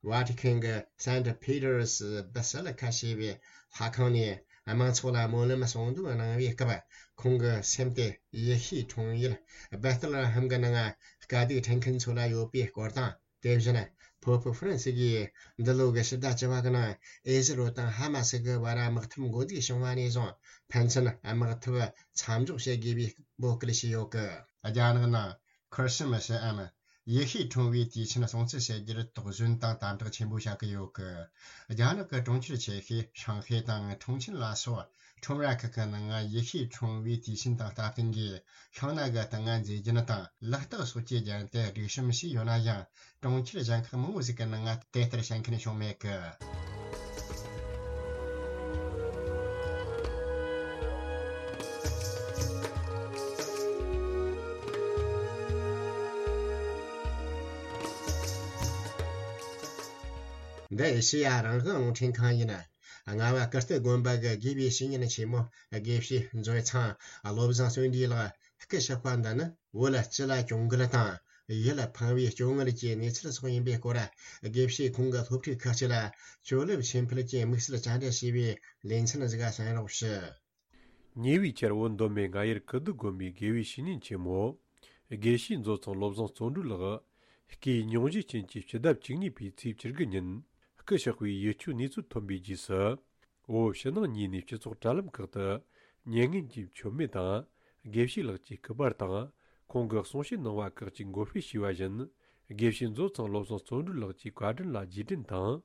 ཝ་ཏི་ཁན་གྱི་སན་ཊ་པི་ཏར་སི་བྷ་སི་ལི་ཁ་ཞེས་པའི་ལྷ་ཁང་ནས། དམངས་ཚོགས་ལ་སྨོན་ལམ་གསུང་འདོན་གནང་བའི་སྐབས། ཁོང་གི་སེམས་དེ་ཡེ་ཤུའི་འཁྲུངས་ཡུལ་སྦེ་ཐེ་ལེ་ཧེམ་གྱི་ནང་དཀའ་སྡུག་འཕྲད་མཁན་ཚོ་ལ་ཡོད་པའི་སྐོར་དང་། དེ་བཞིན་ཕོ་ཕུ་ཧྥ་རན་སི་གིས་འདི་ལོ་གི་ཕྱི་ཟླ་བཅུ་པ་གི་ནང་ཨེ་ཟི་རོ་དང་ཧ་མ་སི་གི་བར་དམག་འཐབ་འགོ་འཛུགས་བྱུང་བ་ནས་བཟུང་ཕན་ཚུན་དམག་འཐབ་མཚམས་འཇོག་བྱེད་དགོས་པའི་འབོད་སྐུལ་བྱས་ཡོད་གི། རྒྱ་ནག་ནང་ཁི་རི་སི་མ་སིའམ་ཡེ་ཤུའི་འཁྲུངས་པའི་དུས་ཆེན་སྲུང་བརྩི་བྱེད་རྒྱུར་དོགས་ཟོན་དང་དམ་དྲག་ཆེན་པོ་བྱ་གི་ཡོད་གི། རྒྱ་ནག་གི་གྲོང་ཁྱེར་ཆེ་ཤོས་ཧྲང་ཧའེ་དང་ཁྲུང་ཆིན་ལ་སོགས་ཁྲོམ་ར་ཁག་གི་ནང་ཡེ་ཤུའི་འཁྲུངས་པའི་དུས་ཆེན་དང་སྟབས་བསྟུན་གྱིས་ཤིང་ནགས་ཀྱི་སྟེང་ང་མཛེས་རྒྱན་དང་ལག་རྟགས་སོགས་ཀྱི་རྒྱན་དེ་སྒྲིག་གཤོམ་བྱས་ཡོད་ན་ཡང་། གྲོང་ཁྱེར་གཞན་ཁག་མང་བོ་ཟིག་གི་ནང་ང་དེ་ལྟར་བྱེད་མཁན་བྱུང་མེད་གི། འདི་ཨེ་ཤེ་ཡ་རང་དབང་རླུང་འཕྲིན་ཁང་ཡིན། རྔ་བ་ཀིརྟི་དགོན་པ་གི་དགེ་བའི་བཤེས་གཉེན་ཆེན་མོ་དགེ་བཤེས་མཛོད་ཚང་བློ་བཟང་བརྩོན་འགྲུས་ལགས་སྐུ་གཤེགས་པ་འདི་ནི། བོད་སྤྱི་ལ་གྱོང་གུན་དང་ཡིད་ཕངས་པའི་སྐྱོ་ངལ་གྱི་གནས་ཚུལ་སོགས་ཡིན་པའི་སྐོར། དགེ་བཤེས་ཁོང་གི་སློབ་ཕྲུག་ཁག་ཅིག་ལ་ཇོ་ལེབ་ཆོས་འཕེལ་གྱི་དམིགས་བསལ་བཅར་འདྲི་བྱས་པའི་ལེ་ཚན་ཟིག་གསན་རོགས་ཞུ། ཉེ་བའི་ཆར་བོད་མདོ་སྨད་རྔ་ཡུལ་ཀིརྟི་དགོན་པའི་དགེ་བའི་བཤེས་གཉེན་ཆེན་མོ། དགེ་བཤེས་མཛོད་ཚང་བློ་བཟང་བརྩོན་འགྲུས་ལགས། སྐུའི་སྙུང་གཞིའི་རྐྱེན་གྱིས་ཕྱི་ཟླ་བཅུ་གཉིས་པའི་ཚེས་བཅུ་དགུ་ཉིན་སྐུ་གཤེགས་པའི་ཡིད་སྐྱོའི་གནས་ཚུལ་ཐོན་པའི་རྗེས་སུ། བོད་ཕྱི་ནང་གཉིས་ནས་སྤྱི་ཚོགས་དྲ་ལམ་ཁག་ཏུ་མྱ་ངན་གྱི་མཆོད་མེ་དང་། དགེ་བཤེས་ལགས་ཀྱི་སྐུ་པར་དང་། ཁོང་གི་གསུང་བཤད་གནང་བ་ཁག་ཅིག་འགོད་སྤེལ་བྱས་པ་བཞིན། དགེ་བཤེས་མཛོད་ཚང་བློ་བཟང་བརྩོན་འགྲུས་ལགས་ཀྱི་བཀའ་དྲིན་ལ་རྗེས་དྲན་དང་།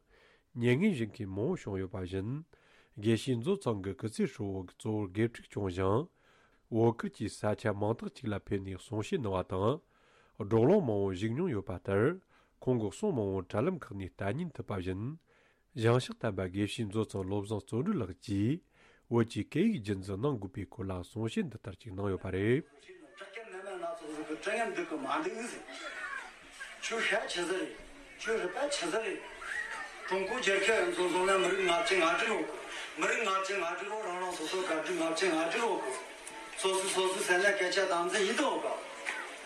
མྱ་ངན་བཞེས་མཁན་མང་བོ་བྱུང་ཡོད་པ་བཞིན། དགེ་བཤེས་མཛོད་ཚང་གི་སྐུ་ཚེ་ཧྲིལ་བོ་གཙོ་བོར་དགེ་ཕྲུག་སྐྱོང་ཞིང་། བོད་ཁུལ་གྱི་ས་ཆ་མང་དག་ཅིག་ལ་ཕེབས་ནས་གསུང་བཤད་གནང་བ་དང་། བགྲོ་གླེང་མང་བོ་བཞུགས་མྱོང་ཡོད་པ་ལྟར། ཁོང་གི་གསུང་མང་བོ་དྲ་ལམ་ཁག་ནས་ལྟ་ཉན་ཐུབ་པ་བཞིན། ཞིང་གཤེགས་དམ་པ་དགེ་བཤེས་མཛོད་ཚང་བློ་བཟང་བརྩོན་འགྲུས་ལགས་ཀྱིས་བོད་ཀྱི་སྐད་ཡིག་རྒྱུན་འཛིན་གནང་དགོས་པའི་སྐོར་ལ་གསུང་བཤད་འདི་ལྟར་ཅིག་གནང་ཡོད་པ་རེད། བྲག་སྐད་ནན་མ་སྣ་ཚོགས་ཟིག་གི་དྲི་ངན་འདུག་གི་མ་འདུག་ཟེར། ཁྱོད་ཤ་ཆི་ཟིག་རེད། ཁྱོད་རུས་པ་ཆི་ཟིག་རེད། ཀྲུང་གོ་རྒྱལ་ཁབ་རང་ཚོ་བཟུང་ན་མི་རིགས་ལྔ་བཅུ་ང་དྲུག་ཡོད་གི། མི་རིགས་ལྔ་བཅུ་ང་དྲུག་རོ། རང་རང་སོ་སོ་ག་དྲུག་ལྔ་བཅུ་ང་དྲུག་ཡོད་གི། སོ་སོ་སོ་སོ་ཟེར་ན་སྐད་ཆ་དམ་འཛིན་ཡིན་དོ་ག།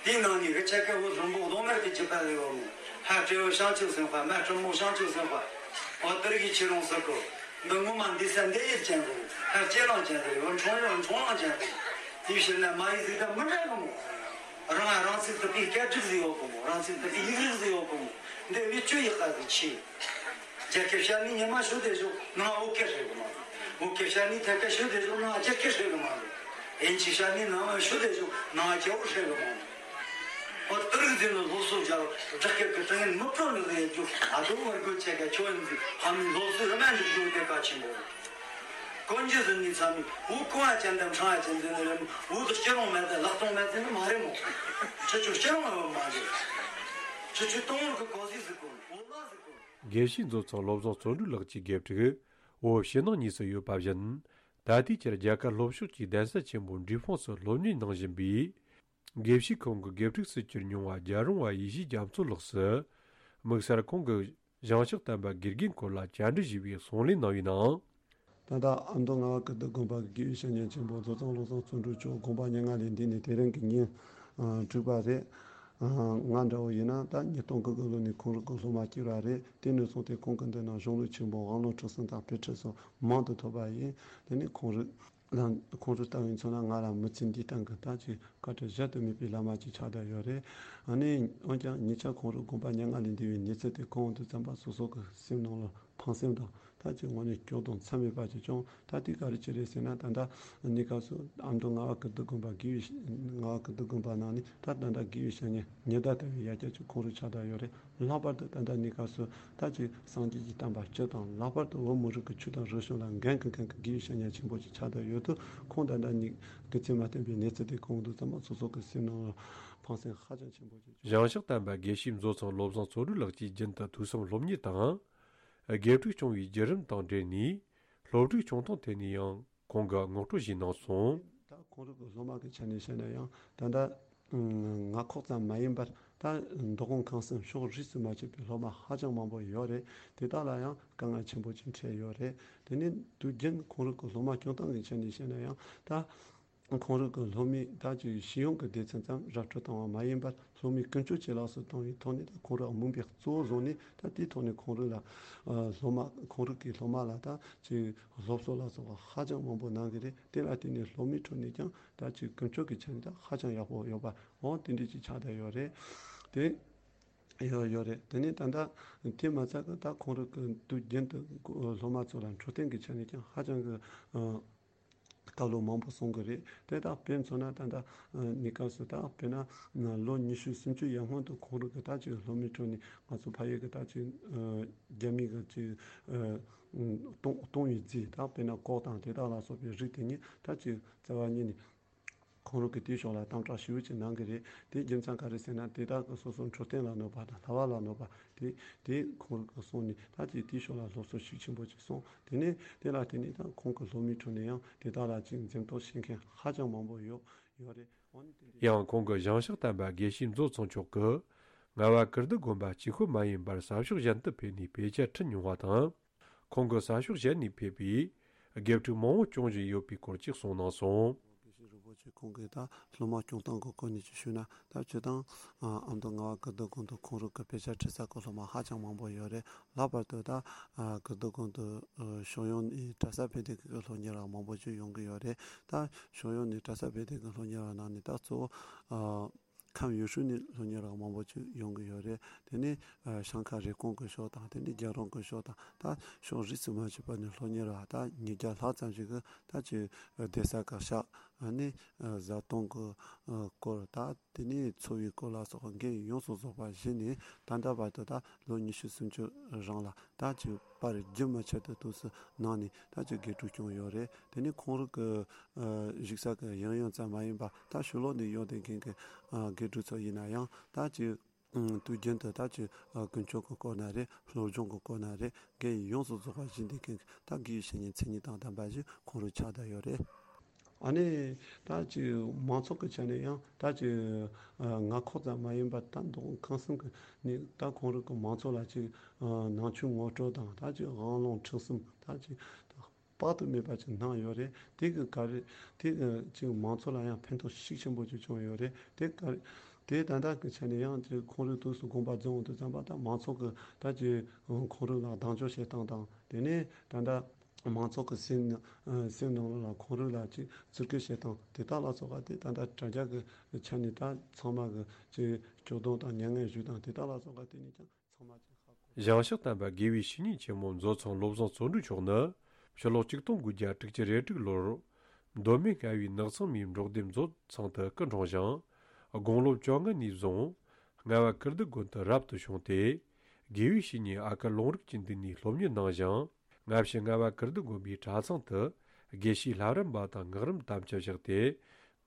དེའི་ནང་ནས་གི་ཆེ་ཁེ་བོ་རིན་པོ་རྡོག་མེར་གི་ཅི་པ་ལས་བ་མོ། ཧ་ཏྲེ་བོ་ཤང་ཆུ་སེང་ཧ། མ་ཀྲི་མོ་ཤང་ཆུ་སེང་ཧ། འོ་དེར་གི་ཁྱེད་རང་ཟེར་གོ། འདི་ངོ་མ་འདི་ས་འདི་ཡིད་ཅན་གོ། ཧ་ཅེ་ལང་ཅན་གོ། འཕྲོང་ཡང་འཕྲོང་ལང་ཅན་གོ། དེའི་ཕྱིར་ན་མ་ཡིག་ཟིག་དང་མི་འདྲ་གི་མོ། རང་རང་ཚིག་དུ་པའི་སྐད་སྒྲིག་ཟིག་ཡོད་གི་མོ། རང་ཚིག་དུ་པའི་ཡིག་རིགས་ཟིག་ཡོད་གི་མོ། འདི་བི་ཅུ་ཡི་ཀ་ཟིག་ཆེ། རྒྱ་སྐད་བཤད་ནི་ཉི་མ་ཤོད་དེ་ཞོག་ནང་བོད་སྐད་ཧྲེ་གི་མ་རེད། བོད་སྐད་བཤད་ནི་ཐད་ཀ་ཤོད་དེ་ཞོག་ནང་རྒྱ་སྐད་ཧྲེ་གི་མ་རེད། ཨིན་ཇི་བཤད་ནི་ནང་ཤོད་དེ་ཞོག་ནང་རྒྱ་བོད་ཧྲེ་གི་མ་རེད། འོ་དེ་རིགས་ཟིན་ནི་སློབ་གསོ་རྒྱ་བོད་སྐད་ཀྱི་དྲི་ངན་མི་སྤྲོ་ནི་ཟེར་རྒྱུ་ཨ་དོ་བར་དགོས་ཆེ་ག་ཁྱོད་ཡིན་ཟིག་ཕ་མའི་སློབ་གསོ་རི་མ་འཇུག་རྒྱུ་དེ་གལ་ཆེན་པོ་རེད། དཀོན་རྒྱུ་ཟིན་ནི་ཚ་མི་བོད་གོང་ཨ་ཅན་དང་ཕྲང་ཨ་ཅན་ཟིན་ནི་རེད། བོད་དུ་སྐྱིད་རུང་མེད་དེ་ལག་སྟོང་མེད་ཟིན་ནི་མ་རེད་མོ། ཁྱེད་ཚོ་སྐྱིད་རུང་ཨ་བ་མ་རེད། ཁྱེད་ཚོ་སྟོང་བོར་གི་གོ་ཟིག་ཟིག་གོ་བོད་ལ་ཟིག་གོ། དགེ་བཤེས་མཛོད་ཚང་བློ་བཟང་བརྩོན་འགྲུས་ལགས་ཀྱི་དགེ་ཕྲུག་བོད་ཕྱི་ནང་གཉིས་སུ་ཡོད་པ་བཞིན། ད་ལྟའི་ཆར་རྒྱ་གར་ལྷོ་ཕྱོགས་ཀྱི་གདན་ས་ཆེན་པོ་འབྲས་སྤུངས་སུ་སློབ་གཉེར་གནང་བཞིན་པའི་དགེ་བཤེས་ཁོང་གི་དགེ་ཕྲུག་སུ་གྱུར་མྱོང་བ་རྒྱལ་རོང་བ་ཡེ་ཤེས་རྒྱ་མཚོ་ལགས་སུ། དམིགས་བསལ་ཁོང་གི་ཞིང་གཤེགས་དམ་པ་དགེ་རྒན་སྐོར་ལ་བཅར་འདྲི་ཞུས་པའི་གསུང་གླེང་གནང་བའི་ནང་། ད་ལྟ་ཨ་མདོ་རྔ་བ་ཀིརྟི་དགོན་པ་གི་དགེ་བའི་བཤེས་གཉེན་ཆེན་པོ་མཛོད་ཚང་བློ་བཟང་བརྩོན་འགྲུས་མཆོག་དགོངས་པ་མྱ་ངན་ལས་འདས་ནས་དེ་རིང་གི་ཉིན་དྲུག་པ་རེད། ང་འདྲ་བོ་ཡིན་ན་ད་ཉིས་སྟོང་གི་དགུ་ལོ་ནས་ཁོང་རང་གི་སློབ་མ་གཅིག་ར་རེད། དེ་ནས་བཟུང་སྟེ་ཁོང་གི་མདུན་ན་གཞུང་ལུགས་ཆེན་པོ་དབང་ལུང་ཁྲིད་གསུམ་དང་དཔེ་ཁྲིད་སོགས་མང་དུ་ཐོབ་པ་ཡིན། དེ་ནས་ཁོང་རང་ལ་ཁོང་རང་ལྟ་བུའི་མཚོན་ན་ང་ལ་མི་ཚེ་འདིའི་སྟེང་གི་ད་ཅིག་བཀའ་དྲིན་གཞལ་དུ་མེད་པའི་བླ་མ་ཅིག་ཆགས་བསྡད་ཡོད་རེད། ཨ་ནི་འོན་ཀྱང་ཉེ་ཆར་ཁོང་རང་དགོངས་པ་མྱ་ངན་ལས་འདས་པའི་གནས་ཚུལ་དེ་གོ་འོང་དུས་ཙམ་པ་སོ་སོ་གི་སེམས་ནང་ལ་ཕངས་སེམས་དང་ད་ཅིག་དངོས་གནས་སྐྱོ་གདུང་མཚམས་མེད་པ་ཅིག་བྱུང་། ད་དེ་ག་རེ་ཅི་རེད་ཟེར་ན། ད་ལྟ་གནས་སྐབས་སུ་ཨ་མདོ་རྔ་བ་ཀིརྟི་དགོན་པ་དགེ་བའི་རྔ་བ་ཀིརྟི་དགོན་པ་ནང་ནས་ད་ད་ལྟ་དགེ་བའི་བཤེས་གཉེན་ཉི་ཟླ་ལྟ་བུའི་ཡ་གྱལ་ཅིག་ཁོང་རང་ཆགས་བསྡད་ཡོད་རེད། ལྷག་པར་དུ་ད་ལྟ་གནས་སྐབས་སུ་ད་ཅིག་སངས་རྒྱས་ཀྱི་བསྟན་པ་སྤྱི་དང་ལྷག་པར་དུ་བོད་མི་རིགས་ཀྱི་ཆོས་དང་རིག་གཞུང་ལ་འགན་འཁུར་མཁན་གྱི་དགེ་བའི་བཤེས་གཉེན་ཆེན་པོ་ཅིག་ཆགས་བསྡད་ཡོད་དུས། ཁོང་ད་ལྟ་ཉིད་སྐུ་ཚེ་མ་བརྟན་པའི་གནས་ཚུལ་དེ་གོ་འོང་དུས་ཙམ་པ་སོ་སོ་གི་སེམས་ནང་ལ་ཕངས་སེམས་ཧ་ཅང་ཆེན་པོ་ཅིག་བྱུང་། ཞིང་གཤེགས་དམ་པ་དགེ་བཤེས་མཛོད་ཚང་བློ་བཟང་བརྩོན་འགྲུས་ལགས་ཀྱིས་རྒྱུན་དུ་ཐོས་བསམ་སློབ་གཉེར་དང་། དགེ་ཕྲུག་སྐྱོང་བའི་བརྒྱུད་རིམ་དང་འབྲེལ་ནས། སློབ་ཕྲུག་ཆུང་མཐོང་ཐད་ནས་ཡང་ཁོང་གིས་ངོ་སྤྲོད་ཞིག་གནང་སོང་། ད་ཁོང་རང་གི་སློབ་མ་གི་ཆ་ནས་བཤད་ན་ཡང་ད་ལྟ་རྔ་ཁོག་ཙམ་མ་ཡིན་པར་ད་མདོ་ཁམས་ཁམས་གསུམ་ཕྱོགས་རིས་སུ་མ་ཆད་པའི་སློབ་མ་ཧ་ཅང་མང་པོ་ཡོད་རེད། དེ་དག་ལ་ཡང་དཀའ་ངལ་ཆེན་པོ་ཅིག་འཕྲད་ཡོད་རེད། དེ་ནས་དུས་རྒྱུན་ཁོང་རང་གི་སློབ་མ་སྐྱོང་སྟངས་ཀྱི་ཆ་ནས་བཤད་ན་ཡང་ད། ཁོང་རང་གི་སློབ་མའི་ད་ཅིག་ཤེས་ཡོན་གྱི་སྡེ་ཚན་ཙམ་ར་སྤྲོད་བཏང་བ་མ་ཡིན་པར། སློབ་མའི་ཀུན་སྤྱོད་ཇེ་ལེགས་སུ་བཏང་བའི་ཐོག་ནས། ད་ཁོང་རང་མིང་པའི་གཙོ་བོ་བཟུང་ནས། ད་དེའི་ཐོག་ནས་ཁོང་རང་ལ་ཨ་སློབ་མ། ཁོང་རང་གི་སློབ་མ་ལ་ད་ཅིག་སློབ་གསོ་ལ་སོགས་པ་ཧ་ཅང་མང་པོ་གནང་གི་རེད། དེ་ལ་བརྟེན་ནས་སློབ་མའི་ཁྲོད་ནས་ཀྱང་ད་ཅིག་ཀུན་སྤྱོད་ཀྱི་ཆ་ནས་ད་ཧ་ཅང་ཡག་པོ་ཡོད་པ། འོ་དེ་འདྲ་ཅིག་ཆགས་བསྡད་ཡོད་རེད། དེ་ཡོད་ཡོད་རེད། དེ་ནས་ད་ལྟ་དེ་མ་ཚད་ཀྱི་ད་ཁོང་རང་གི་དུས་རྒྱུན་དུ་སློབ་མ་ཚོ་ལ་འཕྲོད་བསྟེན་གྱི་ཆ་ནས་ཀྱང་ཧ་ཅང་གི་ཨ་བཀའ་སློབ་མང་པོ་གསུང་གི་རེད། དེ་དག་དཔེ་མཚོན་ན་ད་ལྟ་ཨ་གནས་སྐབས་སུ་ད་དཔེར་ན་ལོ་ཉི་ཤུ་སུམ་ཅུ་ཡར་སྔོན་དུ་ཁོང་རང་གི་ད་ཅིག་སློབ་མའི་ཁྲོད་ནས་ང་ཚོ་ཕ་ཡུལ་གྱི་ད་ཅིག་ཨ་རྒྱ་མི་གི་ཅིག་ཨ་གཏོང་གཏོང་བའི་རྫས། ད་དཔེར་ན་ཀོག་དང་དེ་དག་ལ་སོགས་པའི་རིགས་དེ་ཉིད་ད་ཅིག་རྩ་བ་ཉིད་ནས་ཁོང་རང་གིས་དེའི་ཕྱོགས་ལ་དམ་དྲག་ཞེ་པོ་ཅིག་གནང་གི་རེད། དེའི་རྒྱུ་མཚན་ག་རེ་ཟེར་ན། དེ་དག་གིས་སོ་སོའི་འཕྲོད་བསྟེན་ལ་གནོད་པ་དང་། ལྷ་བ་ལ་གནོད་པ། དེ་དེ་ཁོང་རང་གིས་གསུངས་ནས། ད་ཅིག་དེའི་ཕྱོགས་ལ་སློབ་གསོ་ཤུགས་ཆེན་པོ་ཅིག་སོང་། དེ་ནས་དེ་ལ་བརྟེན་ནས་ད་ཁོང་གི་སློབ་མའི་ཁྲོད་ནས་ཡང་དེ་དག་ལ་ཅིག་འཛེམ་དོགས་བྱེད་མཁན་ཧ་ཅང་མང་པོ་ཡོད་ཡོད་རེད། འོ་ན་དེ་འདྲ། ཡང་ཁོང་གི་ཞིང་གཤེགས་དམ་པ་དགེ་བཤེས་མཛོད་ཚང་མཆོག་གིས་རྔ་བ་ཀིརྟི་དགོན་པ་གཅིག་པུ་མ་ཡིན་པར་ས་ཕྱོགས་གཞན་དུ་ཕེབས་ནས་དཔེ་ཆ་ཁྲིད་མྱོང་བ་དང་། ཁོང་གིས་ས་ཕྱོགས་གཞན་ནས་ཕེབས་པའི་དགེ་ཕྲུག་མང་བོ་སྐྱོང་བཞིན་ཡོད་པའི་སྐོར་ཅིག་གསུངས་གནང་སོང་། དགེ་བཤེས་རིན་པོ་ཆེ་ཁོང་གིས་ད་སློབ་མ་སྐྱོང་སྟངས་ཀྱི་སྐོར་ནས་ཅིག་ཞུས་ན། ད་སྤྱིར་བཏང་ཨ་མདོ་རྔ་བ་ཀིརྟི་དགོན་དུ་ཁོང་རང་གི་དཔེ་ཆ་ཁྲིད་ས་གི་སློབ་མ་ཧ་ཅང་མང་པོ་ཡོད་རེད། ལྷག་པར་དུ་ད་ཨ་ཀིརྟི་དགོན་དུ་ཨ་ཕྱོགས་ཡོངས་ནས་གྲྭ་ས་བོད་སྡེ་ཁག་གི་སློབ་གཉེར་བ་མང་པོ་ཅིག་ཡོང་གི་ཡོད་རེད། ད་ཕྱོགས་ཡོངས་ནས་གྲྭ་ས་བོད་སྡེ་ཁག་གི་སློབ་གཉེར་བ་ནང་ནས་ད་གཙོ་བོ་ཨ་ཁམས་ཡུལ་ཤུལ་ནས་སློབ་གཉེར་བ་མང་པོ་ཅིག་ཡོང་གི་ཡོད་རེད། དེ་ནས་ཨ་བྱང་ཁ་རེབ་གོང་གི་ཕྱོགས་དང་། དེ་ནས་རྒྱལ་རོང་གི་ཕྱོགས་དང་། ད་ཕྱོགས་རིས་སུ་མ་ཆད་པ་ནས་སློབ་གཉེར་བ་ད་ཉིས་བརྒྱ་ལྷག་ཙམ་ཞིག་གིས་ད་ཅིག་ཨ་གདན་ས་བཀའ་ཤག་ཨ་ནི་ཨ་བཟའ་བཏུང་གི་ཨ་སྐོར། ད་དེ་ནས་འཚོ་བའི་སྐོར་ལ་སོགས་པ་འགན་ཡོངས་སུ་རྫོགས་པ་བཞེས་ནས། ད་ལྟ་བར་དུ་ད་ལོ་ཉི་ཤུ་སུམ་ཅུ་རིང་ལ་ད་ཅིག་པར་རྒྱུན་མ་ཆད་དུ་དུས་སུ་གནང་ནས་ད་ཅིག་དགེ་ཕྲུག་སྐྱོང་ཡོད་རེད། དེ་ནས་ཁོང་རང་གི་ཨ་བཞུགས་ས་གི་ཡང་ཡང་ཙམ་མ་ཡིན་པར། ད་ཕྱི་ལོགས་ནས་ཡོང་བསྡད་མཁན་གྱི་ཨ་དགེ་ཕྲུག་ཚོ་ཡིན་ན་ཡང་། ད་ཅིག་ཨ་དུས་རྒྱུན་དུ་ད་ཅིག་ཨ་ཀུན་སྤྱོད་ཀྱི་སྐོར་ན་རེད། སློབ་སྦྱོང་གི་སྐོར་ན་རེད། འགན་ཡོངས་སུ་རྫོགས་པ་བཞེས་བསྡད་མཁན་གྱི་ད་དགེ་བའི་བཤེས་གཉེན་མཚན་ཉིད་དང་ལྡན་པ་ཞིག་ཁོང་རང་ཆགས་བསྡད་ཡོད་རེད། ཨ་ནི་ད་ཅིག་མང་ཚོགས་ཀྱི་ཆ་ནས་ཡང་ད་ཅིག་ཨ་མངའ་ཁོངས་ཙམ་མ་ཡིན་པར། ད་མདོ་ཁམས་གསུམ་གྱི་ནས་ད་ཁོང་རང་གི་མང་ཚོགས་ལ་ཅིག་ཨ་ནང་ཆོས་ངོ་སྤྲོད་དང་། ད་ཅིག་དབང་ལུང་ཁྲིད་གསུམ། ད་ཅིག་དཔག་ཏུ་མེད་པ་ཅིག་གནང་ཡོད་རེད། དེ་གི་ག་རེ་དེ་གི་ཅིག་མང་ཚོགས་ལ་ཡང་ཕན་ཐོགས་ཤུགས་ཆེན་པོ་ཅིག་བྱུང་ཡོད་རེད། དེ་ག་རེ་དེ་ད་ལྟ་གི་ཆ་ནས་ཡང་ཅིག་ཁོང་རང་དུས་སུ་དགོངས་པ་རྫོགས་འོང་དུས་ཙམ་པ། ད་མང་ཚོགས་ཀྱི་ད་ཅིག་ཁོང་རང་ལ་གདེང་འཇོག་བྱེད་སྟངས་དང་། དེ་ནས་ད་ལྟ་མང་ཚོགས་ཀྱི་སེམས་ནང་སེམས་ནང་ལ་ཁོང་རང་ལ་ཅིག་བརྩི་བཀུར་བྱེད་སྟངས་དེ་དག་ལ་སོགས་པ་དེ་ད་ལྟ་དྲ་རྒྱ་གི་ཆ་ནས་ད་ཚང་མ་གི་ཅིག་སྐྱོ་གདུང་དང་མྱ་ངན་ཞུ་སྟངས་དེ་དག་ལ་སོགས་པ་དེ་ནས་ཀྱང་ཚང་མ་ཅིག་ཧ་གོ། ཞིང་གཤེགས་དམ་པ་དགེ་བའི་བཤེས་གཉེན་ཆེན་མོ་མཛོད་ཚང་བློ་བཟང་བརྩོན་འགྲུས་མཆོག་ནི་ཕྱི་ལོ་ཆིག་སྟོང་དགུ་བརྒྱ་དྲུག་ཅུ་རེ་དྲུག་ལོར་མདོ་སྨད་རྔ་བའི་ནགས་ཚང་མའི་འབྲོག་སྡེ་མཛོད་ཚང་དུ་སྐུ་འཁྲུངས་ཤིང་། དགུང་ལོ་བཅོ་ལྔ་ནས་བཟུང་རྔ་བ་ཀིརྟི་དགོན་དུ་རབ་ཏུ་བྱུང་སྟེ། དགེ་བའི་བཤེས་གཉེན་ཨ་ཀར་ལུང་རིགས་ཀྱི་མདུན་ནས་སློབ་གཉེར་གནང་ཞིང་། སྔ་ཕྱི་རྔ་བ་ཀིརྟི་དགོན་པའི་གྲྭ་ཚང་དུ་དགེ་བཤེས་ལྷ་རམས་པ་དང་སྔགས་རམས་དམ་བཅའ་བཞག་སྟེ།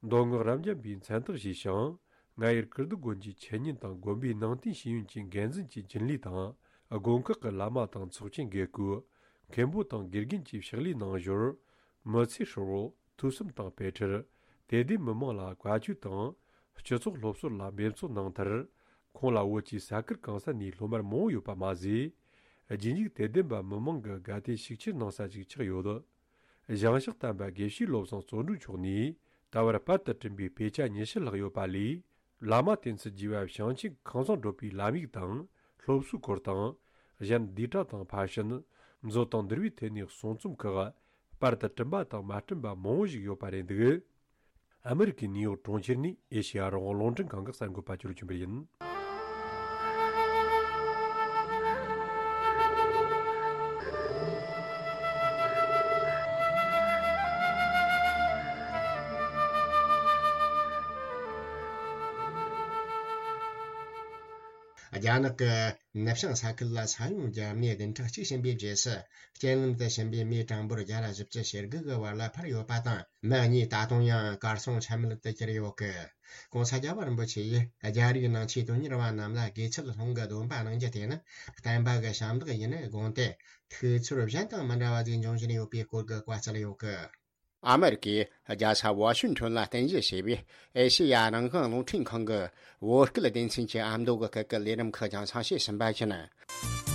མདོ་སྔགས་རབ་འབྱམས་པའི་མཚན་རྟགས་བཞེས་ཤིང་། རྔ་ཡུལ་ཀིརྟི་དགོན་གྱི་འཆད་ཉན་དང་དགོན་པའི་ནང་བསྟན་ཤེས་ཡོན་གྱི་འགན་འཛིན་གྱི་རྒྱུན་ལས་དང་། དགོན་ཁག་གི་བླ་མ་དང་ཚོགས་ཆེན་དགེ་བསྐོས། མཁན་པོ་དང་དགེ་རྒན་གྱི་ཕྱག་ལས་གནང་ཞོར། མི་ཚེ་ཧྲིལ་བོ་ཐོས་བསམ་དང་དཔེ་ཁྲིད། དད་ལྡན་མི་མང་ལ་བཀའ་ཆོས་དང་། སྤྱི་ཚོགས་སློབ་གསོ་ལ་འབད་བརྩོན་གནང་མཐར། ཁོང་ལ་བོད་ཀྱི་ས་ཁུལ་གང་ས་ནས་སློབ་མར་མང་བོ་ཡོད་པ་མ་ཟད། རྗེས་འཇུག་དད་ལྡན་པ་མི་མང་གི་དགའ་དད་ཤུགས་ཆེར་གནང་ས་ཞིག་ཆགས་ཡོད། ཞིང་གཤེགས་དམ་པ་དགེ་བཤེས་བློ་བཟང་བརྩོན་འགྲུས་མཆོག་ནས་ད་བར་པར་དུ་བསྐྲུན་པའི་དཔེ་ཆ་ཉི་ཤུ་ལྷག་ཡོད་པ་ལས། བླ་མ་བསྟེན་ཚུལ་རྒྱས་པ་བྱང་ཆུབ་ཁང་བཟང་བགྲོད་པའི་ལམ་ཡིག་དང་། སློབ་གསོའི་སྐོར་དང་། གཞན་བསྡུས་གྲྭ་དང་ཕར་ཕྱིན། མཛོད་དང་འདུལ་བའི་ཐད་ནས་གསུང་རྩོམ་ཁག་པར་དུ་བསྐྲུན་པ་དང་མ་བསྐྲུན་པ་མང་བོ་ཞིག་ཡོད་པ་རེད་འདུག་ཨ་མི་རི་ཀའི་ནིའུ་ཡོག་གྲོང་ཁྱེར་ནས་ཨེ་ཤེ་ཡ་རང་དབང་རླུང་འཕྲིན་ཁང་གི་གསར་འགོད་པ་ཅོ་ལོ་ཆོས་འཕེལ་ཡིན། རྒྱ་ནག་གི་ནུབ་བྱང་ས་ཁུལ་ལ་ས་ཡོམ་བརྒྱབ་ནས་བདུན་ཕྲག་གཅིག་ཕྱིན་པའི་རྗེས་སུ། རྐྱེན་ལམ་དུ་ཕྱིན་པའི་མིའི་གྲངས་འབོར་བརྒྱ་དང་བཞི་བཅུ་ཞེ་དགུ་གི་བར་ལ་འཕར་ཡོད་པ་དང་། མི་གཉིས་ད་དུང་ཡང་གར་སོང་ཆ་མེད་དུ་གྱུར་ཡོད་སྐད། ྋགོང་ས་རྒྱལ་བ་རིན་པོ་ཆེ་ཡིས་རྒྱ་རིགས་ནང་ཆོས་དོན་གཉེར་བ་རྣམས་ལ་དགེ་ཚུལ་སློང་གི་སྡོམ་པ་གནང་རྒྱུ་དེ་ནི་བསྟན་པ་གི་ཞབས་འདེགས་ཡིན་དགོངས་ཏེ། ཐུགས་ཚོར་གཞན་དང་མི་འདྲ་བ་ཞིག་འབྱུང་བཞིན་ཡོད་པའི་སྐོར་གྱི་བཀའ་སྩལ་ཡོད་སྐད། ཨ་མེ་རི་ཀའི་རྒྱལ་ས་ཝ་ཤིང་ཊོན་ལ་རྟེན་གཞི་བྱས་པའི་ཨེ་ཤེ་ཡ་རང་དབང་རླུང་འཕྲིན་ཁང་གི་བོད་སྐད་སྡེ་ཚན་གྱི་ཨ་མདོ་གི་སྐད་ཀྱི་ལས་རིམ་ཁག་ཀྱང་གསན་བཤད་ཟིན་པ་ཡིན།